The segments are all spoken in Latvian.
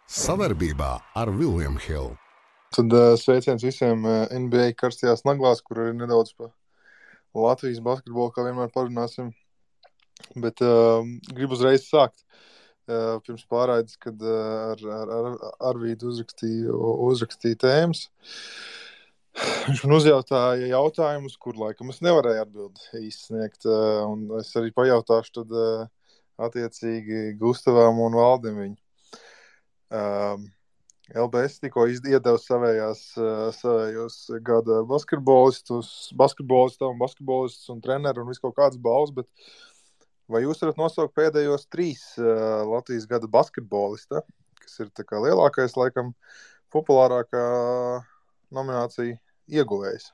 Savarbībā ar William Hill. Tad sveiciens visiem NBA karstajās naglās, kur arī nedaudz pa Latvijas basketbolu, kā vienmēr parunāsim. Bet gribu uzreiz sākt. Pirms pārraides, kad ar Arvīdu uzrakstīja tēmas. Viņš man uzjautāja jautājumus, kur laikam es nevarēju atbildi izsniegt. Un es arī pajautāšu tad attiecīgi Gustavam un Valdim viņu. LBS tikko iedeva savējos gada basketbolistus un treneru un visu kaut kādas balvas, bet vai jūs varat nosaukt pēdējos 3 Latvijas gada basketbolista, kas ir tā kā lielākais, laikam, populārākā nominācija ieguvējs?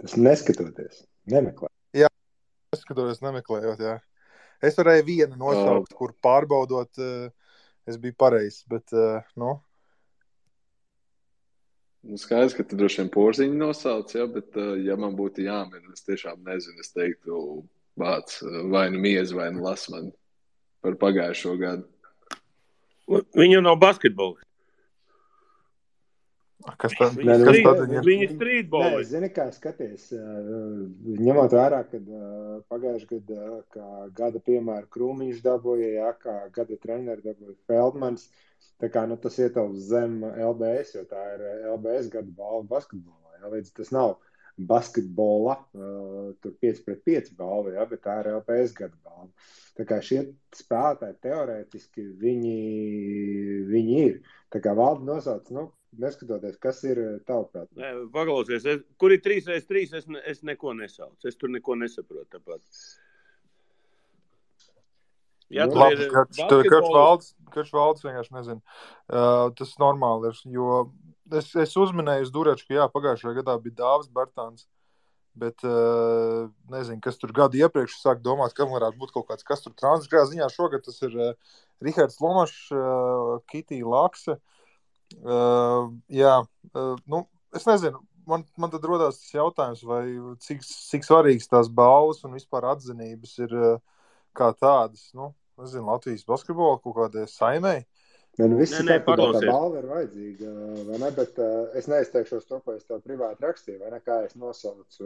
Tas neskatoties, nemeklē. Jā, neskatoties, nemeklējot, jā. Es varēju vienu nosaukt, kur pārbaudot, es biju pareizs, bet, Skaidrs, ka tu droši vien Porziņu nosauc, ja, bet ja man būtu jāmin, es tiešām nezinu, es teiktu vārds vai nu Miez, vai nu Lasman par pagājušo gadu. Viņu nav basketbols. Kas tad? Viņi streetboli. Nē, zini, kā skaties, ņemot vērā, kad pagājuši gadu, kā gada piemēru Krūmiņš dabūja, jā, kā gada treneri dabūja Feldmans, tā kā, tas ietilps zem LBS, jo tā ir LBS gada balva basketbolā, jā, līdz tas nav basketbola, tur 5-5 balva, jā, bet tā ir LBS gada balva. Tā kā šie spēlētāji teorētiski viņi ir. Tā kā Valdi nosauc, neskatoties, kas ir tavuprāt. Paklausies, kur ir 3x3, es neko nesaucu. Es tur neko nesaprotu tāpat. Ja labi, Karš Valds vienkārši nezinu. Tas normāli ir, jo es uzminēju uz Durečku, jā, pagājušajā gadā bija Dāvis Bartāns, bet nezinu, kas tur gadu iepriekš sāk domāt, kam varētu būt kaut kāds, kas tur transgrā ziņā šogad, tas ir Rihards Lomašs, Kitī Lakse. Es nezinu, man tad rodās tas jautājums, vai cik svarīgs tās balvas un vispār atzinības ir kā tādas, nezinu, Latvijas basketbola kaut kādai saimei. Visi saprot, tā balva ir vajadzīga, vai ne, bet es neizteikšos to, ko es tev privāti rakstīju, vai ne, kā es nosaucu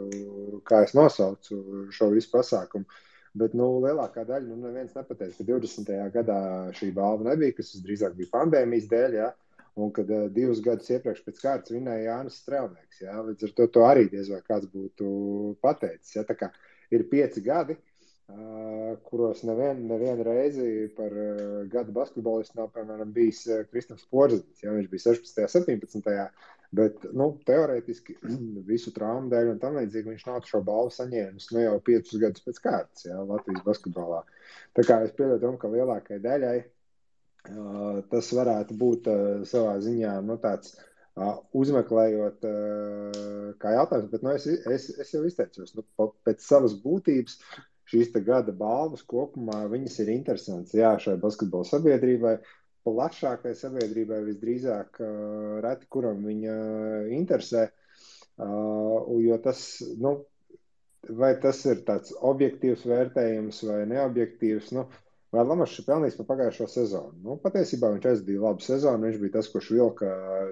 šo visu pasākumu. Bet, lielākā daļa, neviens nepateica, ka 20. gadā šī balva nebija, kas drīzāk bija pandēmijas dēļ, jā. Un kad 2 gadus iepriekš pēc kārtas vinēja Jānis Strelnieks, jā, līdz ar to arī diez vai kāds būtu pateicis, jā, tā kā ir 5 gadi, kuros nevienu reizi par gada basketbolistu nav, piemēram, bijis Kristaps Porziņš, jā, viņš bija 16. 17. Bet, teorētiski visu traumu dēļ un tam līdzīgi viņš nav šo balvu saņēmis, jau 5 gadus pēc kārtas, jā, Latvijas basketbolā. Tā kā es pieļauju, ka lielākai daļai tas varētu būt savā ziņā, tāds uzmeklējot kā jautājums, bet es jau izteicos, pēc savas būtības šīs te gada balvas kopumā viņas ir interesants, jā, šai basketbola sabiedrībai, plašākai sabiedrībai visdrīzāk reti, kuram viņa interesē, jo tas, vai tas ir tāds objektīvs vērtējums vai neobjektīvs, vai Lamašs ir pelnījis par pagājušo sezonu? Patiesībā viņš aizdīja labu sezonu, viņš bija tas, kurš vilka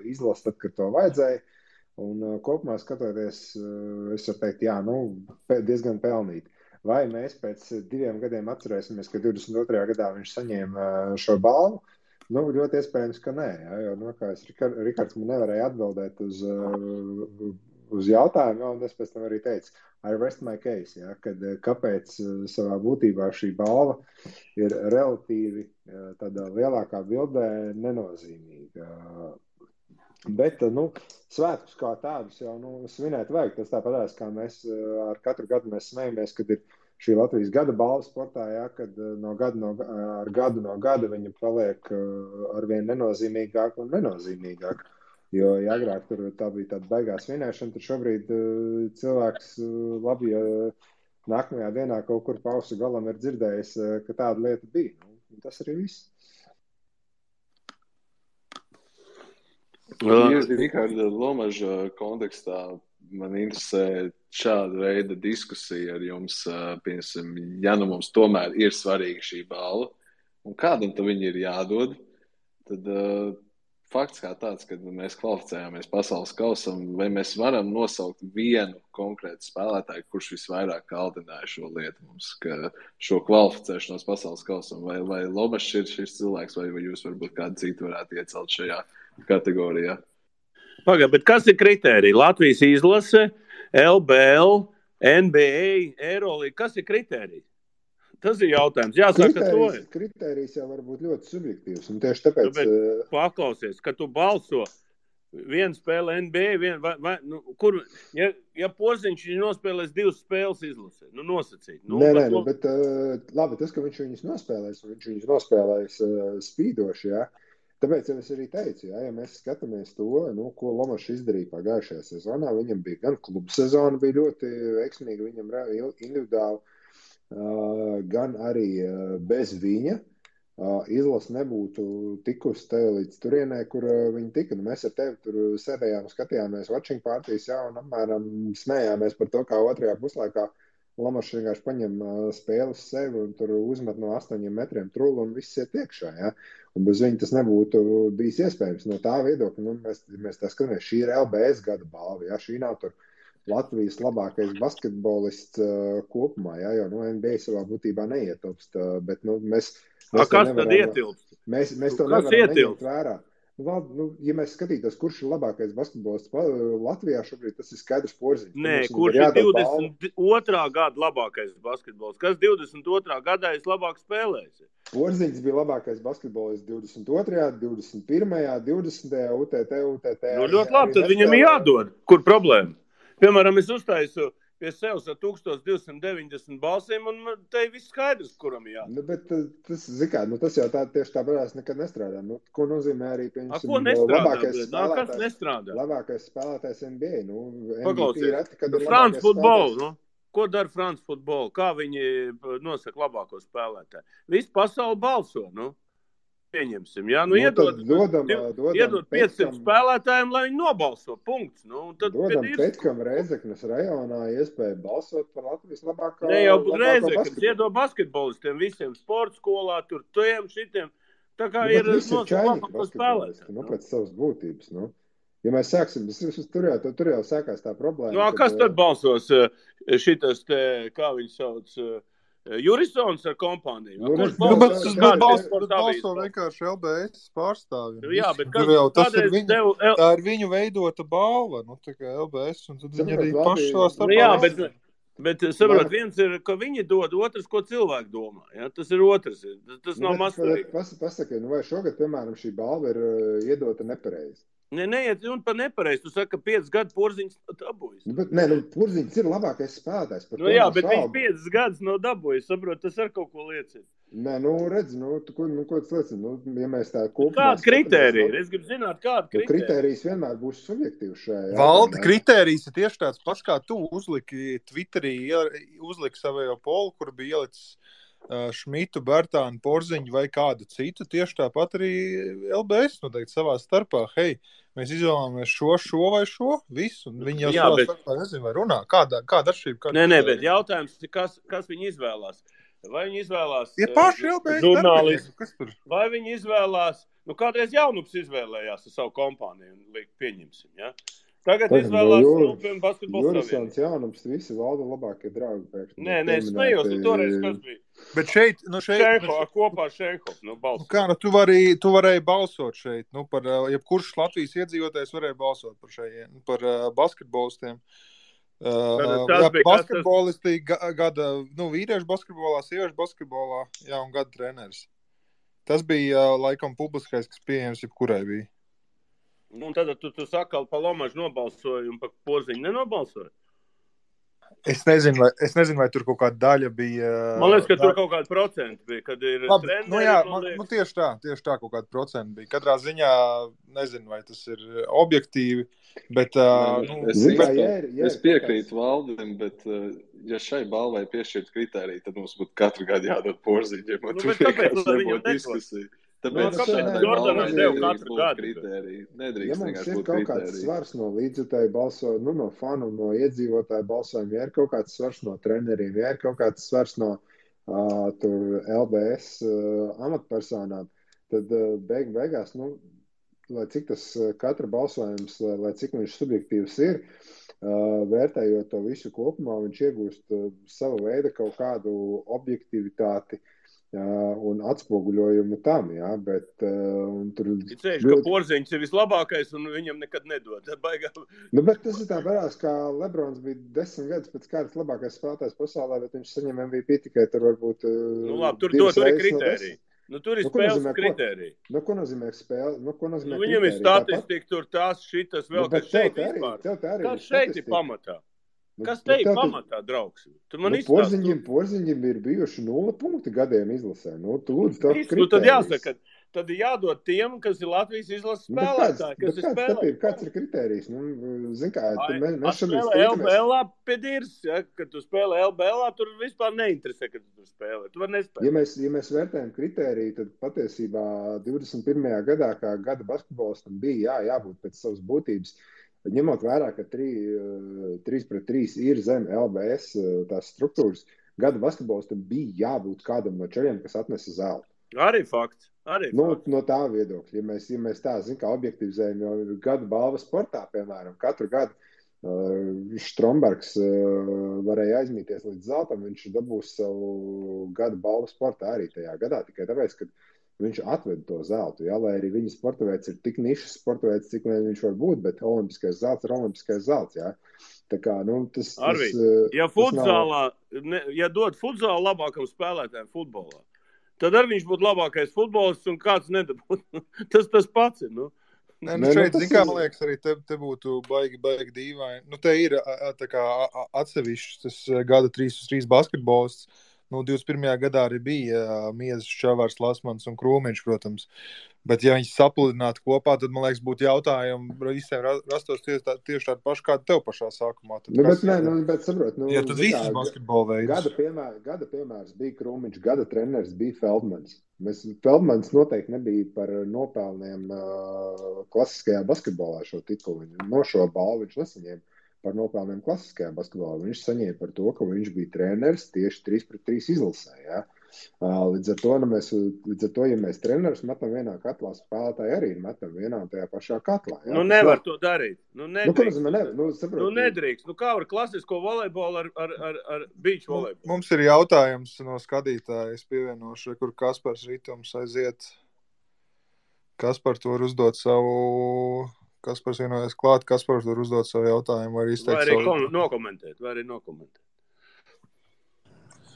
izlases tad, kad to vajadzēja, un kopumā skatoties, es varu teikt, jā, diezgan pelnīti. Vai mēs pēc 2 gadiem atcerēsimies, ka 22. gadā viņš saņēma šo balvu? Ļoti iespējams, ka nē, jā, jo, kā Rikards man nevarēja atbildēt uz jautājumu, un es pēc tam arī teicu, I rest my case, jā, kad kāpēc savā būtībā šī balva ir relatīvi tādā lielākā bildē nenozīmīga. Bet, svētkus kā tādus jau, svinēt vajag. Tas tāpatās, kā mēs ar katru gadu mēs smejamies, kad ir šī Latvijas gada balva sportā, jā, kad ar gadu viņa paliek arvien nenozīmīgāk un nenozīmīgāk. Jo, ja agrāk tur tā bija tāda baigās svinēšana, tad šobrīd cilvēks labi, ja nākamajā dienā kaut kur pa ausu galam ir dzirdējis, ka tāda lieta bija. Tas arī viss. Riharda Lomaža kontekstā man interesē šāda veida diskusija ar jums, piemēram, ja mums tomēr ir svarīga šī balva, un kādam tad viņi ir jādod, tad fakts kā tāds, kad mēs kvalificējāmies pasaules kausam, vai mēs varam nosaukt vienu konkrētu spēlētāju, kurš visvairāk kaldināja šo lietu mums, ka šo kvalificēšanos pasaules kausam, vai Lomašs ir šis cilvēks, vai jūs varbūt kādu citu varētu iecelt šajā kategorijā? Pagad, bet kas ir kritērija? Latvijas izlase, LBL, NBA, Eurolīga, kas ir kritērija? Tas ir jautājums. Jāsaka, kritērijs jau var būt ļoti subjektīvs. Un tieši tāpēc... Paklausies, ka tu balso vienu spēli NBA, ja Porziņš nospēlēs 2 spēles izlasē, nosacīt. Nē, bet labi, tas, ka viņš viņus nospēlēs spīdoši, jā. Tāpēc jau es arī teicu, ja mēs skatāmies to, ko Lomašs izdarīja pagājušajā sezonā, viņam bija gan klubu sezona, bija ļoti veiksmīga, viņam individuāli, gan arī bez viņa izlase nebūtu tikusi te līdz turienē, kur viņi tika. Mēs ar tevi tur sēdējām, skatījāmies watching partijas, un apmēram smējāmies par to, kā otrajā puslaikā Lomašs vienkārši paņem spēli uz sevi un tur uzmet no 8 metriem trulu un viss iet iekšā. Ja? Un bez viņa tas nebūtu bijis iespējams. No tā viedokļa, mēs tā skatāmies, šī ir LBS gada balva. Ja? Šī nav tur Latvijas labākais basketbolists kopumā, ja? Jo NBA savā būtībā neietilpst. Bet mēs kas tad ietilpst? Mēs to nevaram neņemt vērā. Ja mēs skatītos, kurš ir labākais basketbolists Latvijā šobrīd, tas ir skaidrs Porziņš. Nē, kurš ir 22. gada labākais basketbolists? Kas 22. gadā ir labāk spēlējis? Porziņš bija labākais basketbolists 22., 21., 20. UTT. Ļoti labi, tad viņam jādod. Kur problēma? Piemēram, es uztaisu pie sevis ar 1290 balsīm, un te viss skaidrs, kuram jādod. Bet tas, tas jau tieši tāpēc nekad nestrādā. Ko nozīmē arī, ko nestrādā? Kas nestrādā? Labākais spēlētājs NBA. Paklausies, France Football, Ko dara France Football? Kā viņi nosaka labāko spēlētāju? Visu pasauli balso, Pieņemsim, jā. Iedod 500 spēlētājiem, lai viņi nobalso. Punkts. Dodam Petkam Rēzeknes rajonā iespēju balsot par Latvijas labāko basketbolu. Ne jau Rēzeknes, iedod basketbolistiem visiem sporta skolā, tur šitiem. Tā kā ir labāko spēlētāji. Pēc savas būtības, Ja mēs sāksim, tur jau sākās tā problēma. Kas tad balsos šitas te, kā viņi sauc... Jurisons ar kompāniju. Bet balso vienkārši LBS pārstāvjiem. Jā, bet tā ir viņu veidota balva, tā kā LBS, un tad viņi arī paši savā starpā. Jā, bet saprot, viens ir, ka viņi dod, otrs, ko cilvēki domā. Ja? Tas ir otrs. Tas nav mazsvarīgi. Pasaki, vai šogad, piemēram, šī balva ir iedota nepareizi? Neiet un par nepareizi. Tu saki, ka 5 gadu Porziņš dabūjis. Porziņš ir labākais spēlētājs. Jā, bet viņš 5 gadus nav dabūjis. Saprot, tas ar kaut ko liecina. Redz, ko tas liecina? Ja mēs tā kopumā... Kāda kritērija? Es gribu zināt, kāda kritērija. Kritērijs vienmēr būs subjektīvs šajā. Valdi, kritērijs ir tieši tāds pats, kā tu uzliki Twitterī, uzliki savējo polu, kur bija ielicis Šmitu, Bertānu, Porziņu vai kādu citu, tieši tāpat arī LBS noteikti savā starpā. Hei, mēs izvēlamies šo vai šo, visu. Viņi jau savā starpā nezinu, vai runā. Kāda atšķirība? Nē, bet jautājums, kas viņi izvēlās? Vai viņi izvēlās paši LBS žurnālisti? Vai viņi izvēlās, kādreiz Jaunups izvēlējās ar savu kompāniju un pieņemsim, ja? Tagad izvēlās basketbola Jurisons, Jaunups, visi Valda labākie draugi pēkšņi. Nē, smējos, toreiz kas bija. Bet šeit... kopā ar Šeihof, balsot. Tu varēji balsot šeit, par jebkurš Latvijas iedzīvotājs varēja balsot par basketbolistiem. Basketbolisti gada, vīriešu basketbolā, sieviešu basketbolā, un gada treneris. Tas bija, laikam, publiskais, kas pieejams jebkurai bija. Un tad tu saki, pa Lomažu nobalsoji un pa Porziņu nenobalsoji? Es nezinu, vai tur kaut kāda daļa bija... Man liekas, ka tur kaut kāda procenta bija, kad ir treneri. Tieši tā kaut kāda procenta bija. Katrā ziņā nezinu, vai tas ir objektīvi, bet... Es piekrītu Valdim, bet ja šai balvai piešķirt kritēriju, tad mums būtu katru gadu jādod Porziņiem. Tāpēc viņam diskusija. Tāpēc Jordanam devu katru gadu. Ja mums ir kaut kāds svars no līdzjutēju balsojumu, no fanu, no iedzīvotāju balsojumu, ja ir kaut kāds svars no treneriem, ja ir kaut kāds svars no LBS amatpersonām, tad beigās, lai cik tas katra balsojums, lai cik viņš subjektīvs ir, vērtējot to visu kopumā, viņš iegūst savu veidu kaut kādu objektivitāti un atspoguļojumu tam, jā, bet tur... Ka Porziņš ir vislabākais un viņam nekad nedod. Bet tas ir tā varās, kā Lebrons bija 10 gadus pēc kārtas labākais spēlētājs pasaulē, bet viņš saņem MVP tikai tur varbūt... labi, tur ir kritērija. Tur ir spēles kritērija. Ko nozīmē spēle? Viņam ir statistika, tur tās, šitas vēl, kas šeit vispār. Kas šeit ir pamatā? Kas te ir pamatā, draugs? Porziņiem ir bijuši 0 punkti gadiem izlasē. Tu lūdzu, tā kritērijas. Tad jāsaka, tad ir jādod tiem, kas ir Latvijas izlases spēlētāji, kas ir spēlētāji. Kāds ir kritērijs? Zin kā, mēs šobrīd spēlē LBLā pēdīrs, ja? Kad tu spēlē LBLā, tur vispār neinteresē, kad tu tur spēlē. Tu var nespēlēt. Ja mēs vērtējam kritēriju, tad patiesībā 21. gadā, kā gada basketbolistam bija jābūt pēc savas būtības, ņemot vērā, ka 3-3 ir zem LBS tās struktūras, gada basketbolistam bija jābūt kādam no čeļiem, kas atnesa zeltu. Arī fakts. No tā viedokļa, ja mēs tā, kā objektivizējam, jo gada balva sportā, piemēram, katru gadu Strombergs varēja aizmīties līdz zeltam, viņš dabūs savu gada balvu sportā arī tajā gadā, tikai tāpēc, ka viņš atved to zeltu, jā, lai arī viņa sportaveids ir tik nišas sportaveids, cik viņš var būt, bet olimpiskais zelts ir olimpiskais zelts, jā. Tā kā, tas... Ja futzālā, ja dod futzālu labākam spēlētājiem futbolā, tad arī viņš būtu labākais futbolists un kāds nedabūtu. Tas pats ir, šeit, kā man liekas, arī te būtu baigi dīvaini. Te ir tā kā atsevišķs tas gada 3-3 basketbolists. 21. gadā arī bija Miezes, Čavārs, Lasmans un Krūmiņš, protams. Bet, ja viņas sapludinātu kopā, tad, man liekas, būtu jautājumi visiem rastos tieši tādi paši, kādi tev pašā sākumā. Bet saprot, ja tad visas basketbola veids. Gada piemērs bija Krūmiņš, gada treneris bija Feldmans. Feldmans noteikti nebija par nopelniem klasiskajā basketbolā šo titulu. No šo balvu viņš nesaņēma par nopelniem klasiskajā basketbolā. Viņš saņēma par to, ka viņš bija treneris tieši 3-3 izlasē. Ja? Līdz ar to, ja mēs trenerus metam vienā katlā, spēlētāji arī metam vienā un tajā pašā katlā. Ja? Nevar to darīt. Nedrīkst. Nedrīkst. Kā var klasisko volejbolu ar beach volejbolu? Mums ir jautājums no skatītāja. Es pievienošu, kur Kaspars Ritums aiziet. Kaspar to var uzdot savu... Kaspars vienojas klāt, Kaspars var uzdot savu jautājumu, var izteikt savu... Vai arī nokomentēt.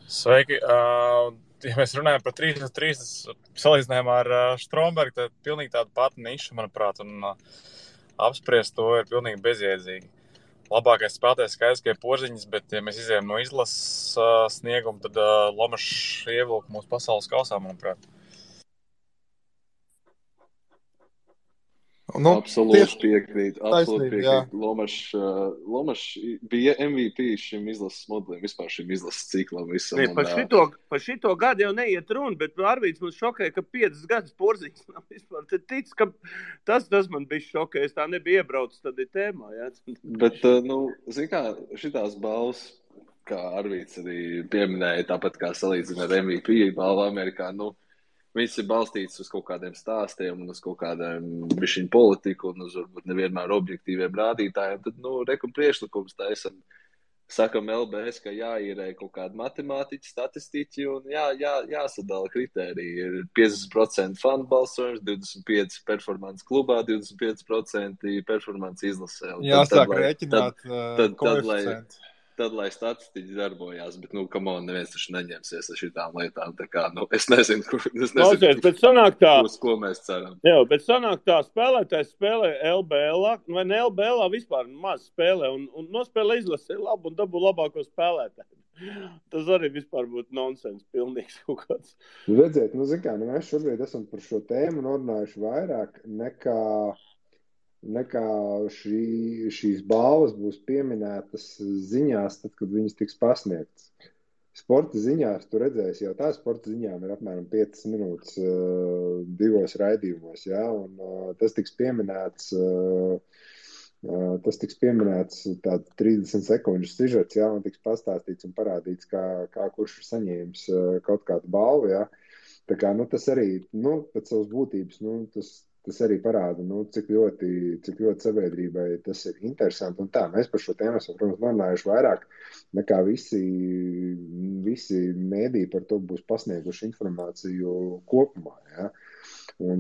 Sveiki. Ja mēs runājam par 3-3 salīdzinājumā ar Strombergu, tad pilnīgi tāda pati niša, manuprāt, un apspriest to ir pilnīgi bezjēdzīgi. Labākais spēlētājs skaidrs, ka ir Porziņš, bet ja mēs izējām no izlases sniegumu, tad Lomašs ievilka mūsu pasaules kausā, manuprāt. Absolūti piekrīt. Lomašs bija MVP šim izlases modelim, vispār šim izlases ciklam. Par šito gadu jau neiet runa, bet Arvīds mums šokēja, ka 5 gadus Porziņš nav vispār. Tad tic, ka tas man bija šokēja. Es tā nebija iebraucis tad ir tēmā. Jā. Bet, zin kā, šitās balvas, kā Arvīds arī pieminēja, tāpat kā salīdzina ar MVP balvu Amerikā, viņas ir balstītas uz kaut kādiem stāstiem un uz kaut kādiem bišķiņu politiku un uz varbūt nevienmēr objektīviem rādītājiem. Tad, priekšlikums taisam, sakam LBS, ka jāīrē kaut kādi matemātiķi, statistiķi un jāsadala kritēriji. Ir 50% fanu balsojums, 25% performance klubā, 25% performance izlasē. Jāsāk rēķināt koeficientu. Tad, lai statistiķi darbojās, bet, neviens taču neņemsies ar šitām lietām, tā kā, es nezinu, ko mēs ceram. Jā, bet sanāk tā, spēlētājs spēlē LBLā, vai ne LBLā vispār maz spēlē, un nospēlē izlasē labu un dabū labāko spēlētāju. Tas arī vispār būtu nonsens, pilnīgs kaut kāds. Redziet, mēs šobrīd esam par šo tēmu norunājuši vairāk nekā šīs balvas būs pieminētas ziņās, tad, kad viņas tiks pasniegtas. Sporta ziņās tu redzēsi, jau tā sporta ziņām ir apmēram 5 minūtes 2 raidījumos, ja? Un tas tiks pieminēts tāds 30 sekundžu sižets, ja? Un tiks pastāstīts un parādīts, kā kurš ir saņēmis kaut kādu balvu, ja? Tā kā, tas arī, pēc savas būtības, tas arī parāda, cik ļoti sabiedrībai tas ir interesanti. Un tā, mēs par šo tēmu esam, protams, runājuši vairāk nekā visi mēdī par to būs pasnieguši informāciju kopumā, ja? Un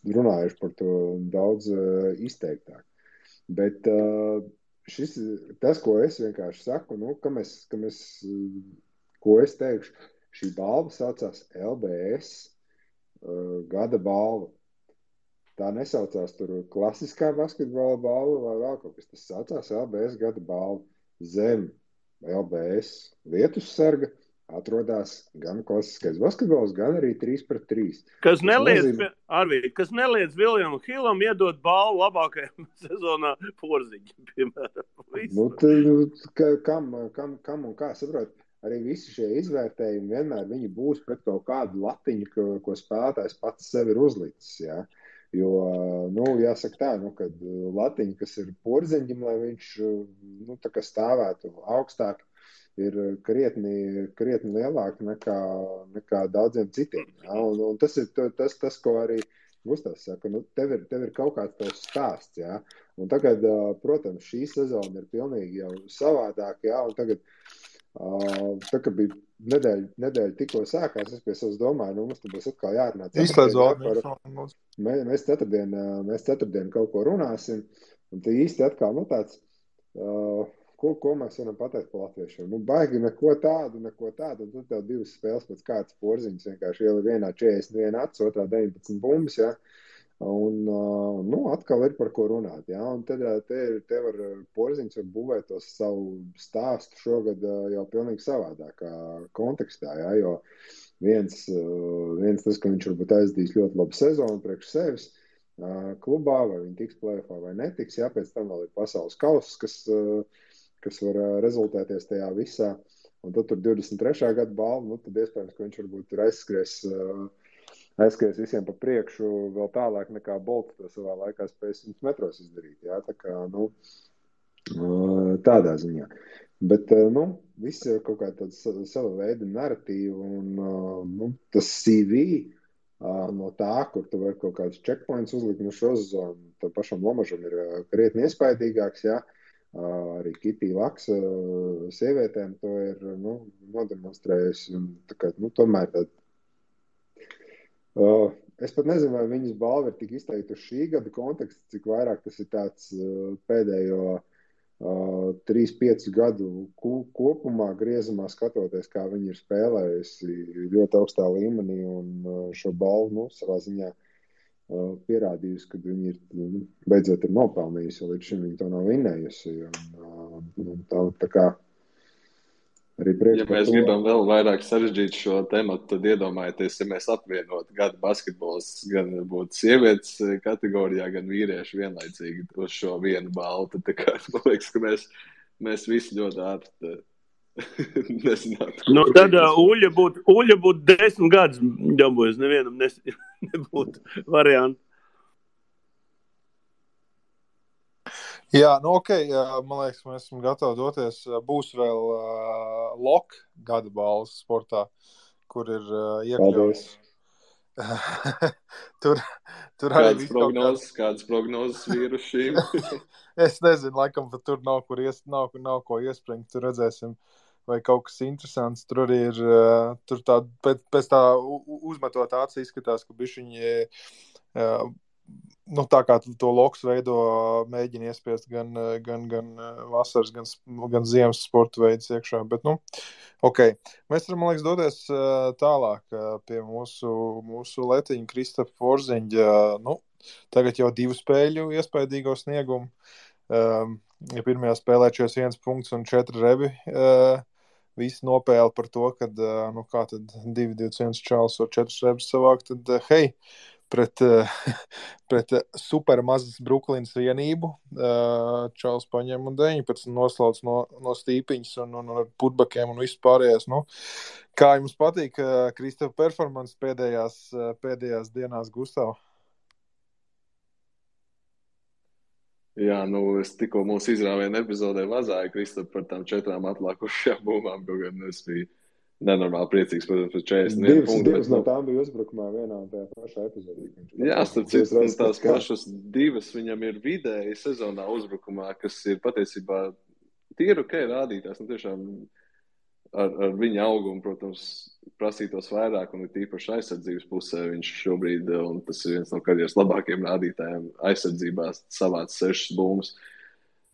runājuši par to daudz izteiktāk. Bet tas, ko es vienkārši saku, ko es teikšu, šī balva saucās LBS gada balva. Tā nesaucās tur klasiskā basketbola balva vai vēl kaut kas. Tas saucās LBS gada balva. Zem LBS vietussarga atrodās gan klasiskais basketbols, gan arī 3-3. Kas neliedz Viljamam Hillam iedot balvu labākajam sezonā Porziņam, piemēram. Kam un kā saprot? Arī visi šie izvērtējumi vienmēr viņi būs pret kaut kādu latiņu, ko spēlētājs pats sev ir uzlicis. Ja? Jo, jāsaka tā, kad latiņa, kas ir Porziņam, lai viņš tā kā stāvētu augstāk, ir krietni lielāka nekā daudziem citiem. Ja? Un tas ir tas, ko arī Gustavs saka. Tev ir kaut kāds tavs stāsts. Ja? Un tagad, protams, šī sezona ir pilnīgi jau savādāk. Ja? Un tagad tā kā bija nedēļa tikko sākās, es pie savas domāju, mums tad būs atkal jārunā. Mēs ceturtdien kaut ko runāsim, un tā īsti atkal tāds, ko mēs varam pateikt par latviešiem. Baigi neko tādu, un tad tev divas spēles pēc kāds Porziņas vienkārši ielika vienā 41 acis, otrā 19 bumbas, ja. Un atkal ir par ko runāt. Ja? Un te var Porziņš var būvēt to savu stāstu šogad jau pilnīgi savādākā kontekstā. Ja? Jo viens tas, ka viņš varbūt aizdīs ļoti labu sezonu priekš sevis klubā, vai viņi tiks play-offā vai netiks. Ja? Pēc tam vēl ir pasaules kauss, kas var rezultēties tajā visā. Un tad tur 23. gada balva, tad iespējams, ka viņš varbūt tur aizskries visiem pa priekšu vēl tālāk nekā Bolts to savā laikā spēja 100 metros izdarīt. Jā, tā kā, tādā ziņā. Bet, viss ir kaut kā tāds sava veida narratīva un tas CV no tā, kur tu vari kaut kādus checkpoints uzlikt no šo sezonu, tad pašam Lomažam ir krietni iespaidīgāks, jā. Arī Kitī Laks sievietēm to ir, nodemonstrējusi un tā kā, tomēr tad es pat nezinu, vai viņas balva ir tik izteikti uz šī gada konteksta, cik vairāk tas ir tāds pēdējo 3-5 gadu kopumā griezumā skatoties, kā viņi ir spēlējusi ļoti augstā līmenī un šo balvu savā ziņā pierādījusi, ka viņi ir beidzot ir nopelnījusi, jo līdz šim viņi to nav vinnējusi. Tā kā ja mēs gribam vēl vairāk sarežģīt šo tematu, tad iedomājieties, ja mēs apvienotu gada basketbols gan būtu sievietes kategorijā, gan vīrieši vienlaicīgi uz šo vienu balvu. Tad, man liekas, ka mēs visi ļoti ātri nezinātu. Tad Uļa būtu 10 gadus dabūjis, nevienam nebūtu variantu. Jā, ok, man liekas, mēs esam gatavi doties. Būs vēl LOK gada balvas sportā, kur ir iekļauts. tur arī kādas prognozes vīrušīm? Es nezinu, laikam, bet tur nav ko iespringt. Tur redzēsim, vai kaut kas interesants. Tur arī ir, tur tā, pēc tā uzmetot acis izskatās, ka bišķiņi tā kā to loks veido, mēģina iespiest gan vasaras, gan ziemas sporta veidus iekšā. Bet, ok. Mēs varam, man liekas, doties tālāk pie mūsu letiņa Kristafa Porziņa. Tagad jau 2 spēļu iespaidīgo sniegumu. Ja pirmajā spēlē 41 punkts un 4 rebi. Visi nopēla par to, kad, kā tad 2-21 čāls var 4 rebus savākt, tad, hei, pret super mazas Brooklynas vienību. Čāls paņem un 19 noslauc no stīpiņas un ar putbakiem un visu pārējās. Kā jums patīk Kristafa performance pēdējās dienās, Gustav? Jā, es tikko mūsu izrāvienu epizodē vazāju Kristafu par tām 4 atlākušajām bumbām, kaut gan es biju nenormāli priecīgs, protams, par 41 punktu. Divas no tām bija uzbrukumā vienā un tajā pašā epizodī. Jā, starp citu, tās pašas divas viņam ir vidēji sezonā uzbrukumā, kas ir patiesībā tīri ok rādītās. Tiešām ar viņa augumu, protams, prasītos vairāk, un ir tīpaši aizsardzības pusē viņš šobrīd, un tas ir viens no karjeras labākajiem rādītājiem aizsardzībā, savāc 6 bumbas.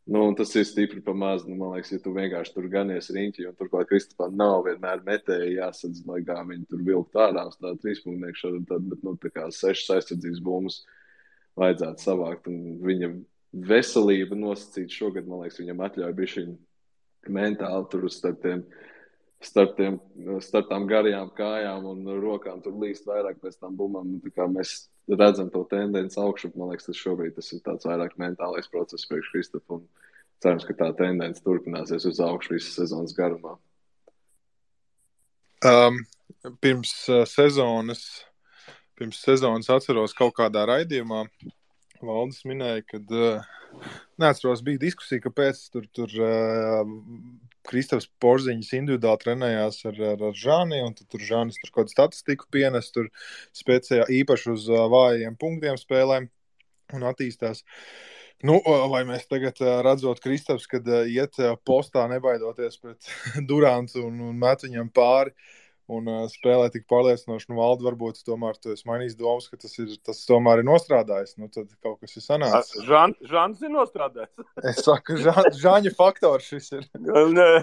Un tas ir stipri pa maz. Man liekas, ja tu vienkārši tur ganies riņķi, un turklāt Kristapā nav vienmēr metēji jāsadz, lai kā viņi tur vilkt ārā uz tādu 3-punknieku šādu, bet tā kā 6 aizsardzības bumbas vajadzētu savākt, un viņa veselība nosacīt šogad, man liekas, viņam atļauj bišķiņ mentāli tur starp tām garajām kājām un rokām tur līst vairāk pēc tām bumbām. Tā kā mēs redzam to tendenci augšu, man liekas, tas ir tāds vairāk mentālais process priekš Kristapu, un cerams, ka tā tendence turpināsies uz augšu visas sezonas garumā. Pirms sezonas atceros kaut kādā raidījumā, Valdis minēja, kad, neatceros, bija diskusija, kāpēc tur Kristaps Porziņš individuāli trenējās ar Žani, un tur Žanis tur kaut statistiku pienes, tur speciāli īpaši uz vājiem punktiem spēlēm un attīstās. Vai mēs tagad redzot Kristaps, kad iet postā nebaidoties pret Durantu un met viņam pāri, un spēlē tik pārliecinoši, Valdi, varbūt tomēr tu esi mainījis domas, ka tas tomēr ir nostrādājis, tad kaut kas ir sanācis. Žans ir nostrādājis. Es saku, Žaņa faktors šis ir. Nē,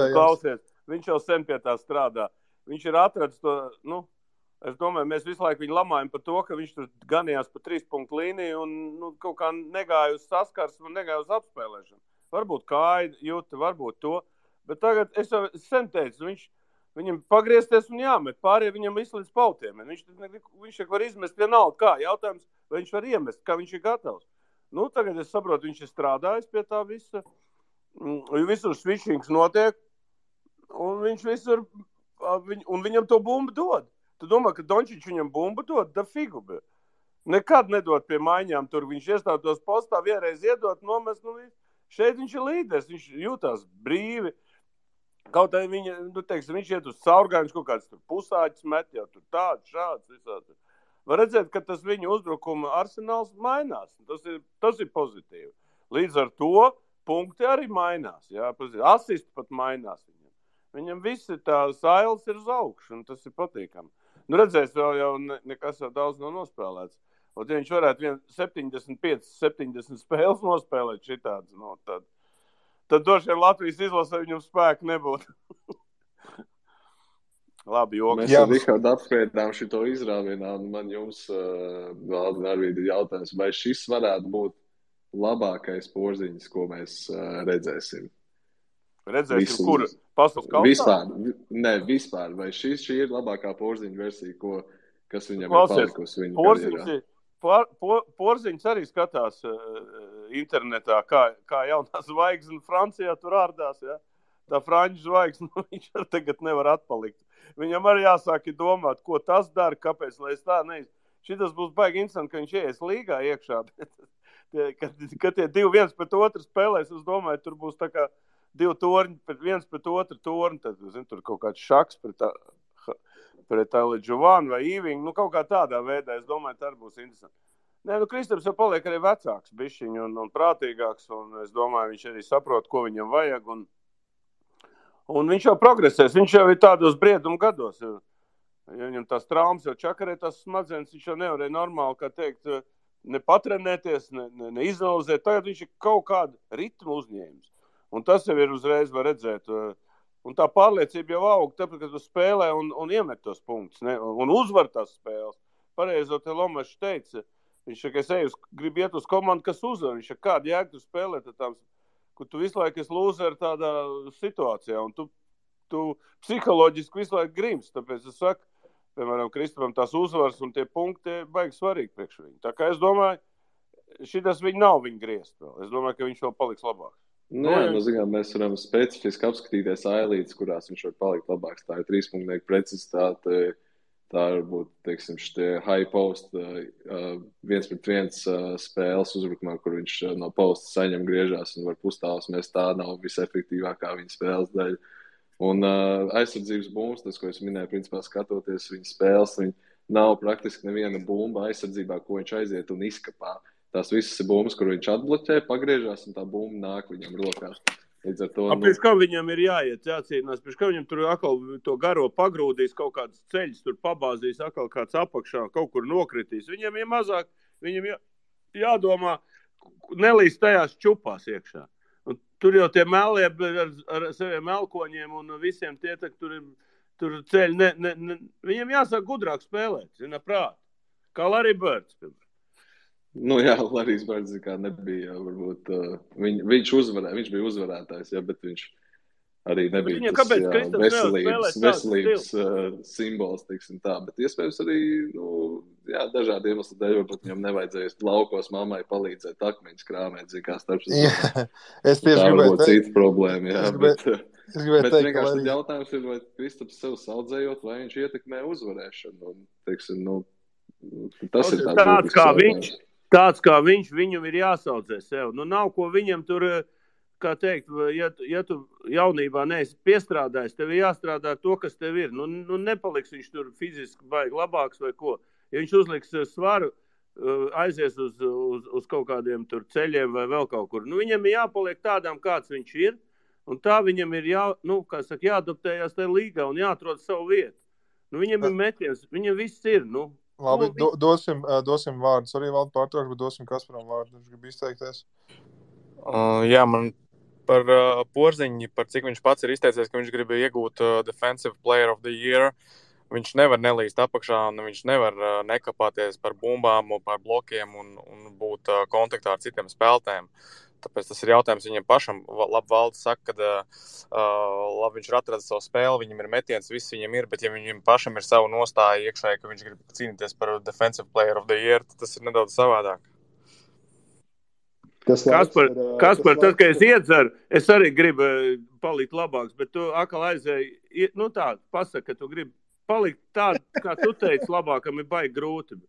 klausies, viņš jau sen pie tā strādā. Viņš ir atradis to, es domāju, mēs visu laiku viņu lamājam par to, ka viņš tur ganījās pa 3-punktu līniju un kaut kā negāja uz saskarsmu un negāja uz apspēlēšanu. Varbūt kāja jūta, varbūt to, bet tagad es jau sen teicu, viņam pagriezties un jāmet, pārējie viņam izslīdz pautiem. Viņš var izmest vienalga kā. Jautājums, vai viņš var iemest, kā viņš ir gatavs. Tagad es saprotu, viņš ir strādājis pie tā visa. Visur switchings notiek, un viņš visur, un viņam to bumbu dod. Tu domā, ka Dončić viņam bumbu dod? Da figu. Nekad nedod pie maiņām tur. Viņš iestātos postā, vienreiz iedot, nomest. Šeit viņš ir līderis, viņš jūtās brīvi. Kaut arī viņš iet uz caurgājumu, kaut kāds tur pusāķis met, jau tur tāds, šāds, visādi. Var redzēt, ka tas viņa uzbrukuma arsenāls mainās. Tas ir pozitīvi. Līdz ar to punkti arī mainās. Jā, asisti pat mainās viņam. Viņam visi tās ailes ir uz augšu, un tas ir patīkami. Redzēs, jau nekas jau daudz nav nospēlēts. Ja viņš varētu 75-70 spēles nospēlēt šitāds, tad droši vien Latvijas izlasē viņam spēku nebūtu. Labi, joks. Mēs ar Rihardu apspriedām šito izrāvienā, un man jums, Valdi, Arvīdi, ir jautājums, vai šis varētu būt labākais Porziņš, ko mēs redzēsim? Redzēsim, kur? Pasaules kausā? Vispār. Vai šī ir labākā Porziņa versija, kas viņam ir palikusi viņa karjerā? Porziņš arī skatās internetā, kā jaunā zvaigzne Francijā tur ārdās, ja? Tā franču zvaigzne, viņš arī tagad nevar atpalikt. Viņam arī jāsāk domāt, ko tas dara, kāpēc, lai es tā neizsaka. Šitas būs baigi interesanti, ka viņš ies līgā iekšā. Kad tie 2 viens pret otru spēlēs, es domāju, tur būs tā kā 2 torņi viens pret otru torņi, tad, tur kaut kāds šaks pret Giovanni vai Īvingu, kaut kā tādā veidā, es domāju, tā arī būs interesanti. Kristaps jau paliek arī vecāks bišķiņ un prātīgāks, un es domāju, viņš arī saprot, ko viņam vajag, un viņš jau progresēs, viņš jau ir tādos briedumu gados, ja viņam tās traumas jau čakarē, tās smadzenes, viņš jau nevarēja normāli, kā teikt, ne patrenēties, ne izanalizēt, tagad viņš ir kaut kādu ritmu uzņēmis, un tas jau ir uzreiz var redzēt, un tā pārliecība jau aug, tāpēc, ka tu spēlē un iemet tos punktus, un uzvar tās spēles. Pareizo te Lomašs teica, viņš, ka es gribu iet uz komandu, kas uzvar, viņš, kādu jēgu tu spēlē, kur tu visu laiku esi lūzeri tādā situācijā, un tu psiholoģiski visu laiku grims, tāpēc es saku, piemēram, Kristapam tās uzvaras un tie punkti baigi svarīgi priekš viņu. Tā kā es domāju, šitas viņi nav viņa griezt vēl. Es domāju, ka viņš vēl paliks labāks. Mēs varam specifiski apskatīties ailītes, kurās viņš var palikt labāks. Tā ir 3-punknieku precizitāte, tā varbūt, teiksim, šitie high post 1-pret-1 spēles uzbrukumā, kur viņš no posta saņem griežās un var pustāvus mest, tā nav visefektīvākā viņa spēles daļa. Un aizsardzības bumbas, tas, ko es minēju, principā skatoties viņa spēles, viņa nav praktiski neviena bumba aizsardzībā, ko viņš aiziet un izkapā. Tās visas ir bumbas, kur viņš atbloķē, pagriežās, un tā bumba nāk viņam rokā. Līdz ar to... Pēc kā viņam ir jācīnās, pēc kā viņam tur atkal to garo pagrūdīs, kaut kāds ceļš tur pabāzīs, atkal kāds apakšā, kaut kur nokritīs. Viņam ir mazāk, viņam jādomā, nelīst tajās čupās iekšā. Un tur jau tie meli ar saviem melkoņiem un visiem tie, tur ceļi, viņiem jāsāk gudrāk spēlēt, zina prāt. Kā Larry Birds. Nu jā, Larrys Birds kā nebija, varbūt, viņš bija uzvarētājs, jā, bet viņš arī nebija tas veselības simbols, teiksim tā, bet iespējams arī, dažādi iemesli dēļ, varbūt viņam nevajadzēja laukos mammai palīdzēt akmeņus krāmēt, kā starp es tieši tā varbūt cita problēma, jā, bet teikt, vienkārši tad jautājums ir, vai Kristaps sev saudzējot, vai viņš ietekmē uzvarēšanu, un, teiksim, tas ir tāds kā viņš, viņam ir jāsaudzē sev. Nav ko viņam tur, kā teikt, ja tu jaunībā neesi piestrādājis, tev ir jāstrādā to, kas tev ir. Nepaliks viņš tur fiziski baigi labāks vai ko. Ja viņš uzliks svaru, aizies uz kaut kādiem tur ceļiem vai vēl kaut kur. Viņam ir jāpaliek tādām, kāds viņš ir, un tā viņam ir jāadaptējās tajā līgā un jāatrod savu vietu. Viņam ir metiens, viņam viss ir, Labi, dosim vārdus. Arī vēl pārtraukšu, bet dosim Kasparam vārdu. Viņš grib izteikties. Jā, man par Porziņu, par cik viņš pats ir izteicies, ka viņš grib iegūt Defensive Player of the Year. Viņš nevar nelīst apakšā, un viņš nevar nekapāties par bumbām un par blokiem un būt kontaktā ar citiem spēlētājiem. Tāpēc tas ir jautājums viņam pašam. Labi, Valds saka, ka viņš ir atradis savu spēli, viņam ir metiens, viss viņam ir, bet ja viņam pašam ir savu nostāju iekšēji, ka viņš grib cīnīties par Defensive Player of the Year, tad tas ir nedaudz savādāk. Kaspar, tad, kad es iedzeru, es arī gribu palikt labāks, bet tu atkal aizēji, pasaka, ka tu gribi palikt tādu, kā tu teici, labākam ir baigi grūti.